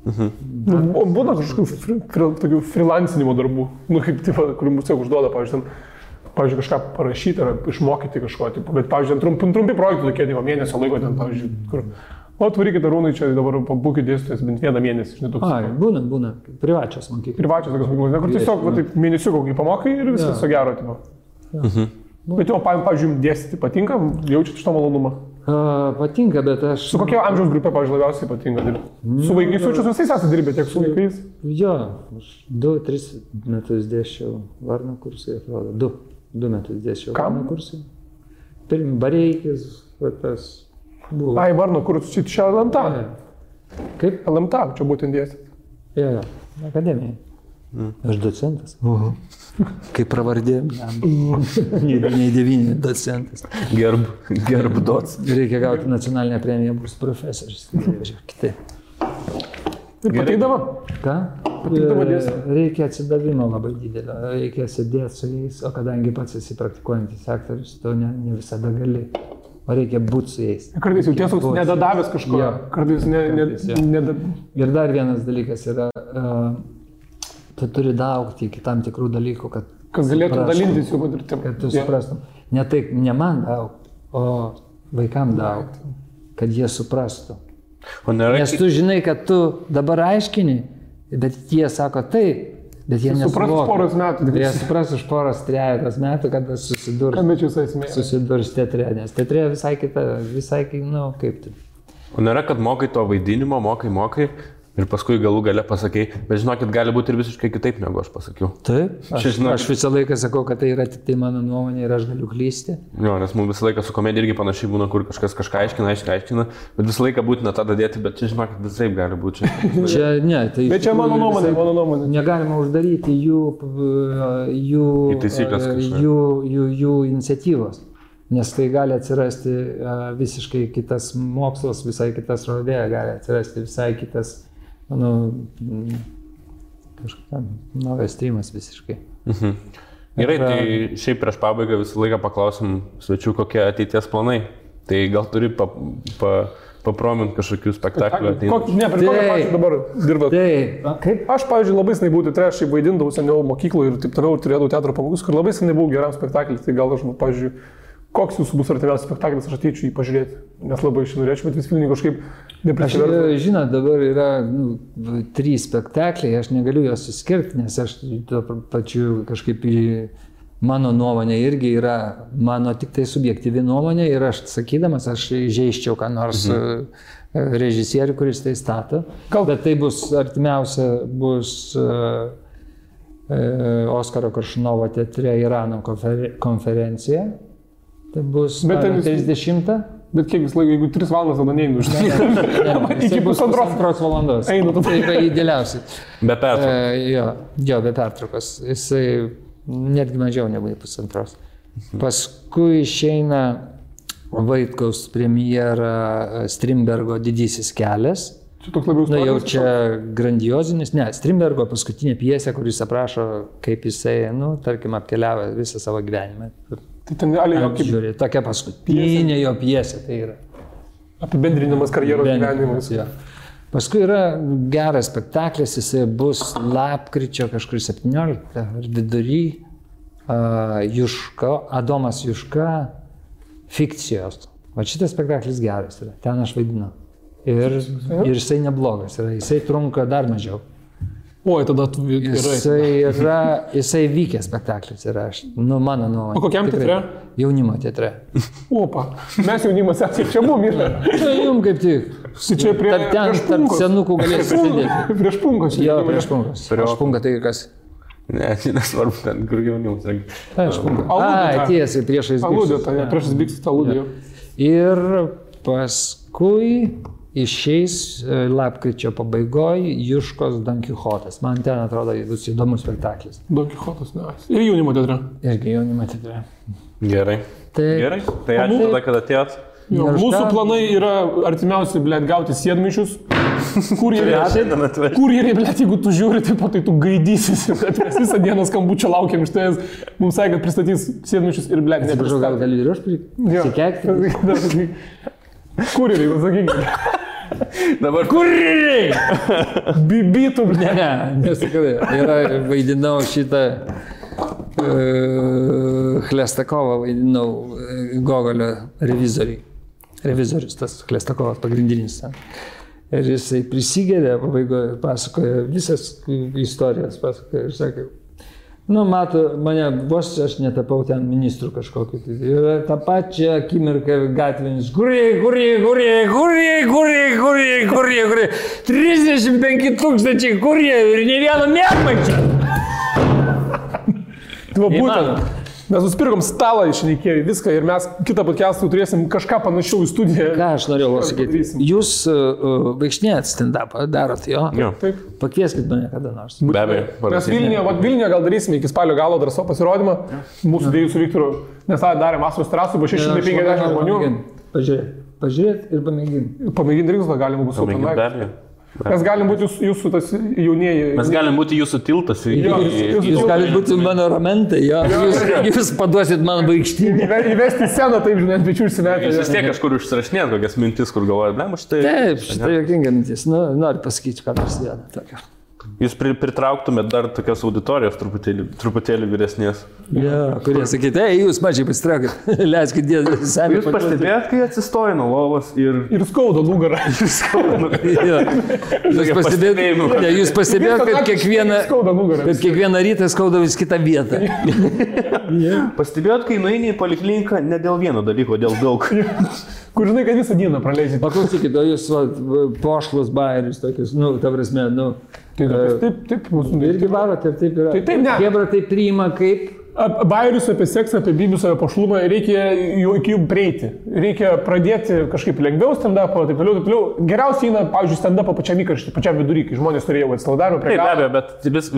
Būna kažkokių freelancinimo darbų, kaip tipo, kur mums tiek užduoda, pavyzdžiui, kažką parašyti ar išmokyti kažko, tipo, bet, pavyzdžiui, trumpi projektai tokie, mėnesio laiko ten, pavyzdžiui, kur, atvarykite Arūnai, čia dabar pabūkit dėstytojas bent 1 mėnesį, žinai, toks. Būna, privačios mokyklos. Privačios tokios mokyklos, kur tiesiog mėnesių kokį pamokai ir viskas so gero, tipo. Bet jau, pavyzdžiui, dėstyti patinka, jaučiate šitą malonumą? Patinka, bet aš... Su kokia amžiaus grupė, pavyzdžiui, labiausiai patinka dirbti? Su vaikais jaučiu, visais esate dirbę, tiek su vaikais? Jo, aš 2-3 metus dėsčiau Varno kursai, atrodo. 2 metus dėsčiau Varno kursai. Pirmi Bareikis, tas buvo. Ai, Varno kursai, čia LMTA. Kaip? LMTA, čia būtent dėstyti. Jo, akademija. Aš docentas. Kaip pravardė. Nei 9 docentas. Gerb doc. Reikia gauti nacionalinę premiją, bus profesorius. Kitaip. Ir pateikdavo? Ką? Reikia atsidavimo labai didelio. Reikia sėdėti su jais, o kadangi pats esi praktikuojantis aktorius, to ne visada gali. O reikia būti su jais. Kartais jau tiesiog nedadavęs kažko. Kartais Ir dar vienas dalykas yra... Tu turi daugti iki tam tikrų dalykų, kad galėtum dalintis jų patirtim. Kad tu suprastum. Ne man daug, o vaikam daug, kad jie suprastų. Nes tu žinai, kad tu dabar aiškini, bet jie sako taip, bet jie nesuvokia. Jie supras už 3 metų, kada susidurs teatre, nes teatre visai kaip tai. O nėra, kad mokai to vaidinimo, mokai. Ir paskui galų gale pasakai, bet žinokit, gali būti ir visiškai kitaip, negu aš pasakiau. Taip, aš visą laiką sakau, kad tai yra tik tai mano nuomonė ir aš galiu klysti. Jo, nes mums visą laiką su komedija irgi panašiai būna, kur kažkas kažką aiškina, bet visą laiką būtina tą dadėti, bet čia žinokit, visaip gali būti. Bet čia mano nuomonė. Negalima uždaryti jų iniciatyvos, nes tai gali atsirasti visiškai kitas mokslas, visai kitas rodė, gali atsirasti visai kitas kažkokia naujas streamas visiškai. Gerai, tai šiaip prieš pabaigą visą laiką paklausim svečių, kokie ateities planai. Tai gal turi papromint kažkokių spektaklių ateinančių. Ne, prie kokio pačiu dabar dirbat? Aš, pavyzdžiui, labai senai buvau teatre, aš vaidindavau seniau mokykloje ir taip toliau, turėdavau teatro pamokas, kur labai senai buvau geram spektakliui, tai gal aš, pavyzdžiui, koks jūsų bus artimiausias spektaklis, aš ateičiau jį pažiūrėti, nes labai iš norėčiau, bet vis Vilniui kažkaip neprisivertų. Žinot, dabar yra 3 spektakliai, aš negaliu juos suskirti, nes aš tuo pačiu kažkaip mano nuomonė irgi yra mano tik tai subjektyvi nuomonė ir aš sakydamas, aš žeiščiau ką nors režisierių, kuris tai stato, bet tai bus artimiausia bus Oskaro Koršunovo teatre Irano konferencija. Tai bus 30. Bet kiek vis laiko, jeigu 3 valandas, tada neinu už iki 1,5 valandos. Einu, tai yra idealiausiai. Be pertraukos. Jo, be pertraukos. Jisai netgi mažiau negu 1,5. Paskui išeina Vaitkaus premjera Strindbergo Didysis kelias. Čia toks labiau istorinis. Jau čia grandiozinis. Ne, Strindbergo paskutinė pjesė, kuris aprašo, kaip jisai, tarkim, apkeliavo visą savo gyvenimą. Tai ten Žiūrė, tokia paskutinė jo pjesė tai yra. Apibendrinimas karjeros gyvenimas. Ja. Paskui yra geras spektaklis, jisai bus lapkričio kažkur 17 ar vidury. Juška, Adomas Juška, fikcijos. Va šitas spektaklis geras yra, ten aš vaidinu. Ir jisai neblogas yra, jisai trunka dar mažiau. Oi, tada tu gerai. Jisai vykęs spektaklis yra, mano nuomonė. O kokiam teatre? Jaunimo teatre. Opa, mes jaunimas esame, čia mum yra. Tai jums kaip tik. Čia prieš tarp senukų galėsi sėdėti. Prieš punkos. Jo, prieš punkos. Prieš punką tai kas? Ne, nesvarbu, ten kur jaunimas. Prieš punką. Tiesiai, priešais biksus. Aludė, tai priešais biksus aludė. Ir paskui išeis lapkričio pabaigoje Juškos Don Kichotas. Man ten atrodo bus įdomus spektaklis. Don Kichotas, ne. Ir jaunimo teatre. Irgi jaunimo teatre. Gerai. Gerai. Tai ačiū tada, kad atėjot. Mūsų planai yra artimiausi, blėt, gauti sėdmaišius. Kurjeriai, blėt, jeigu tu žiūri, tai tu gaidysis. Mes visą dieną skambučio laukiam iš tavęs. Mums sakė, kad pristatys sėdmaišius ir, blėt, nepristatys. Gal gali ir aš prikekti? Kurjeriai, pasakykime. Dabar kurjeriai! Bibitų, ne, nesakau. Ir vaidinau šitą Chlestakovą, vaidinau Gogolio revizorius, tas Chlestakovas pagrindinis. Ir jisai prisigeria, pabaigoje pasakoja visas istorijas, pasakoja ir sakė, mato, mane vos aš netapau ten ministrų kažkokiu. Ir tą pačią akimirką gatvinis, kurie, 35 000 kurie ir ne vieno mėgmaičio. Būtent. Mes nusipirkom stalą iš Ikėjų, viską ir mes kitą podcastą turėsim kažką panašiau į studiją. Ką aš norėjau pasakyti? Jūs vaikšnėjat stand-upą, darot jo? Taip. Pakvieskit mane kada nors. Be abejo. Mes Vilniuje gal darysime iki spalio galo dar savo pasirodymą. Mūsų dviejų su Viktoru, nes tą darėm Vasaros terasų, buvo 650 žmonių. Pažiūrėt ir pamėginti. Pamėginti reiks, gal galima bus supanai. Mes galim būti jūsų tas jaunieji. Mes galim būti jūsų tiltas. Jūs galite būti mano ramentai, jo. Jūs paduosit man vaikštynį. Įvesti sceną, taip, žinai, ant pečių užsimetę. Jūs vis tiek kažkur užsirašinėt kokias mintis, kur galvojat, ne, štai. Taip, štai jokinga mintis. Noriu pasakyti, ką nors vieną tokią. Jūs pritrauktumėt dar tokios auditorijos truputėlį vyresnės. Ja, kurie sakyti, jūs mažiai pasitraukit, leiskit dėti seniai. Jūs pastebėjot, kai atsistoja nuo lovos ir skauda nugarą. Jūs pastebėjot, kad kiekvieną rytą skauda vis kitą vietą. Pastebėjot, kai nueini į polikliniką ne dėl vieno dalyko, dėl daug. Kur žinai, kad visą dieną praleidžiate. Paklausykit, o jūs pošlus bairius tokius, ta prasme, Taip, mūsų irgi varot ir taip yra. Taip, ne. Hebra tai priima kaip? Bairius apie seksą, apie bibius, apie pošlumą, reikia iki jų prieiti. Reikia pradėti kažkaip lengviau stand-upą, taip toliau. Geriausiai eina, pavyzdžiui, stand-upą pačiam įkarštį, pačiam vidury, kai žmonės turėjo atsilaudavimą prie galo. Taip, be abejo, bet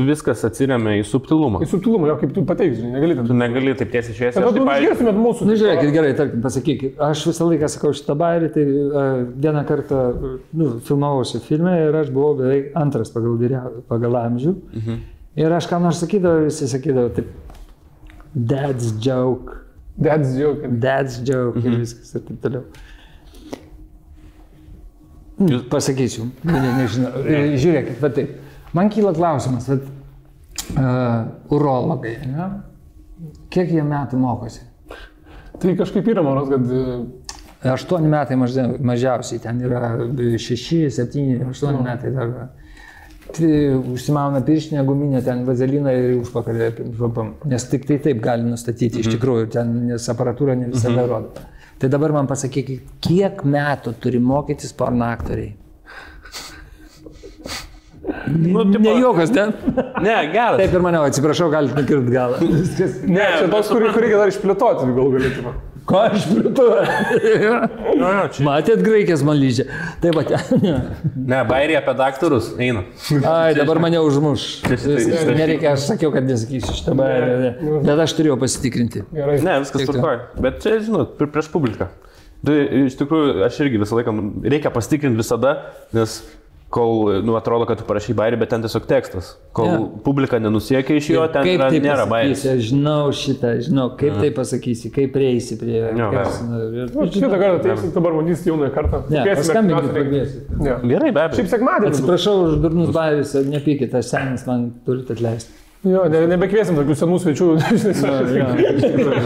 viskas atsiremia į subtilumą. Į subtilumą, jo, kaip tu pateiksi, negali taip. Tu negali taip tiesiai šviesiai. Tada tu išgirsimėt mūsų. Žiūrėkit, gerai, tarkim, pasakykit. Aš visą laiką sakau šitą bairį, tai vieną kartą filmavausi filme ir aš buvau beveik antras pagal amžių. Ir aš ką nors sakydavau, visi sakydavo taip. Dad's joke. Ir viskas ir taip toliau. Pasakysiu, nežinau. Žiūrėkit, bet taip. Man kyla klausimas, urologai, ne? Kiek jie metų mokosi? Tai kažkaip yra, manos, kad 8 metai mažiausiai, ten yra 6, 7, 8 metai dar. Užsimauna pirštinę guminę, ten vazeliną ir užpakalį, nes tik tai taip gali nustatyti iš tikrųjų, nes aparatūra ne visada rodo. Tai dabar man pasakykit, kiek metų turi mokytis porno aktoriai? Ne juokas, ne? Ne, geras. Taip ir maniau, atsiprašau, galite nukirti galą. Ne, čia toks, kurį reikia dar išplėtoti, gal galėtume. Ko išplėtoju? Matėt graikės man lyžė. Taip pat. Ne, bairį apie daktarus eina. Ai, dabar mane užmuš. Nereikia, aš sakiau, kad nesakysiu šitą bairį. Bet aš turėjau pasitikrinti. Ne, viskas tvarkoja. Bet čia, žinot, prieš publiką. Tai iš tikrųjų, aš irgi visą laiką reikia pasitikrinti visada, nes kol atrodo, kad tu parašai bairį, bet ten tiesiog tekstas. Kol publika nenusiekia iš jo, ten nėra bairis. Žinau šitą, kaip tai pasakysi, kaip prieisi prie... Šitą kartą teiksi, dabar matysi jaunąją kartą. Paskambinti pradėsi. Gerai, be abejo. Šiaip sekmadienį. Atsiprašau už durnus bairis, nepykit, aš senis, man turit atleisti. Jo, nebekviesim tokių senų svečių.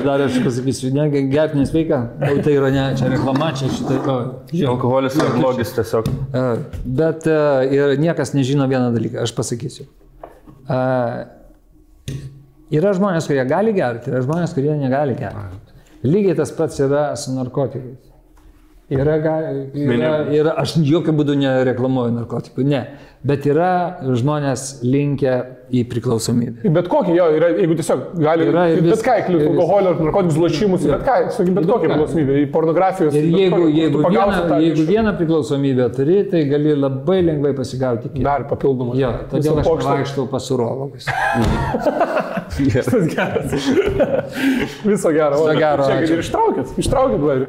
Dar aš pasakysiu, gerti nesveika, tai yra ne, čia reklama, čia šitą. Alkoholis yra blogis tiesiog. Bet ir niekas nežino vieną dalyką, aš pasakysiu. Yra žmonės, kurie gali gerti, yra žmonės, kurie negali gerti. Lygiai tas pats yra su narkotikais. Aš jokių būdų nereklamuoju narkotikų, ne. Bet yra žmonės linkę į priklausomybę. Bet kokį, jo, yra, jeigu tiesiog gali, bet ką, alkoholio, narkotikus, lošimus, bet ką, bet kokią priklausomybę, į pornografijos. Ir jeigu vieną priklausomybę turi, tai gali labai lengvai pasigauti. Dar papildomą. Jo, todėl aš vaikštau pas urologus. Visas geras. Viso gero. Viso gero. Ir ištraukit, vairį.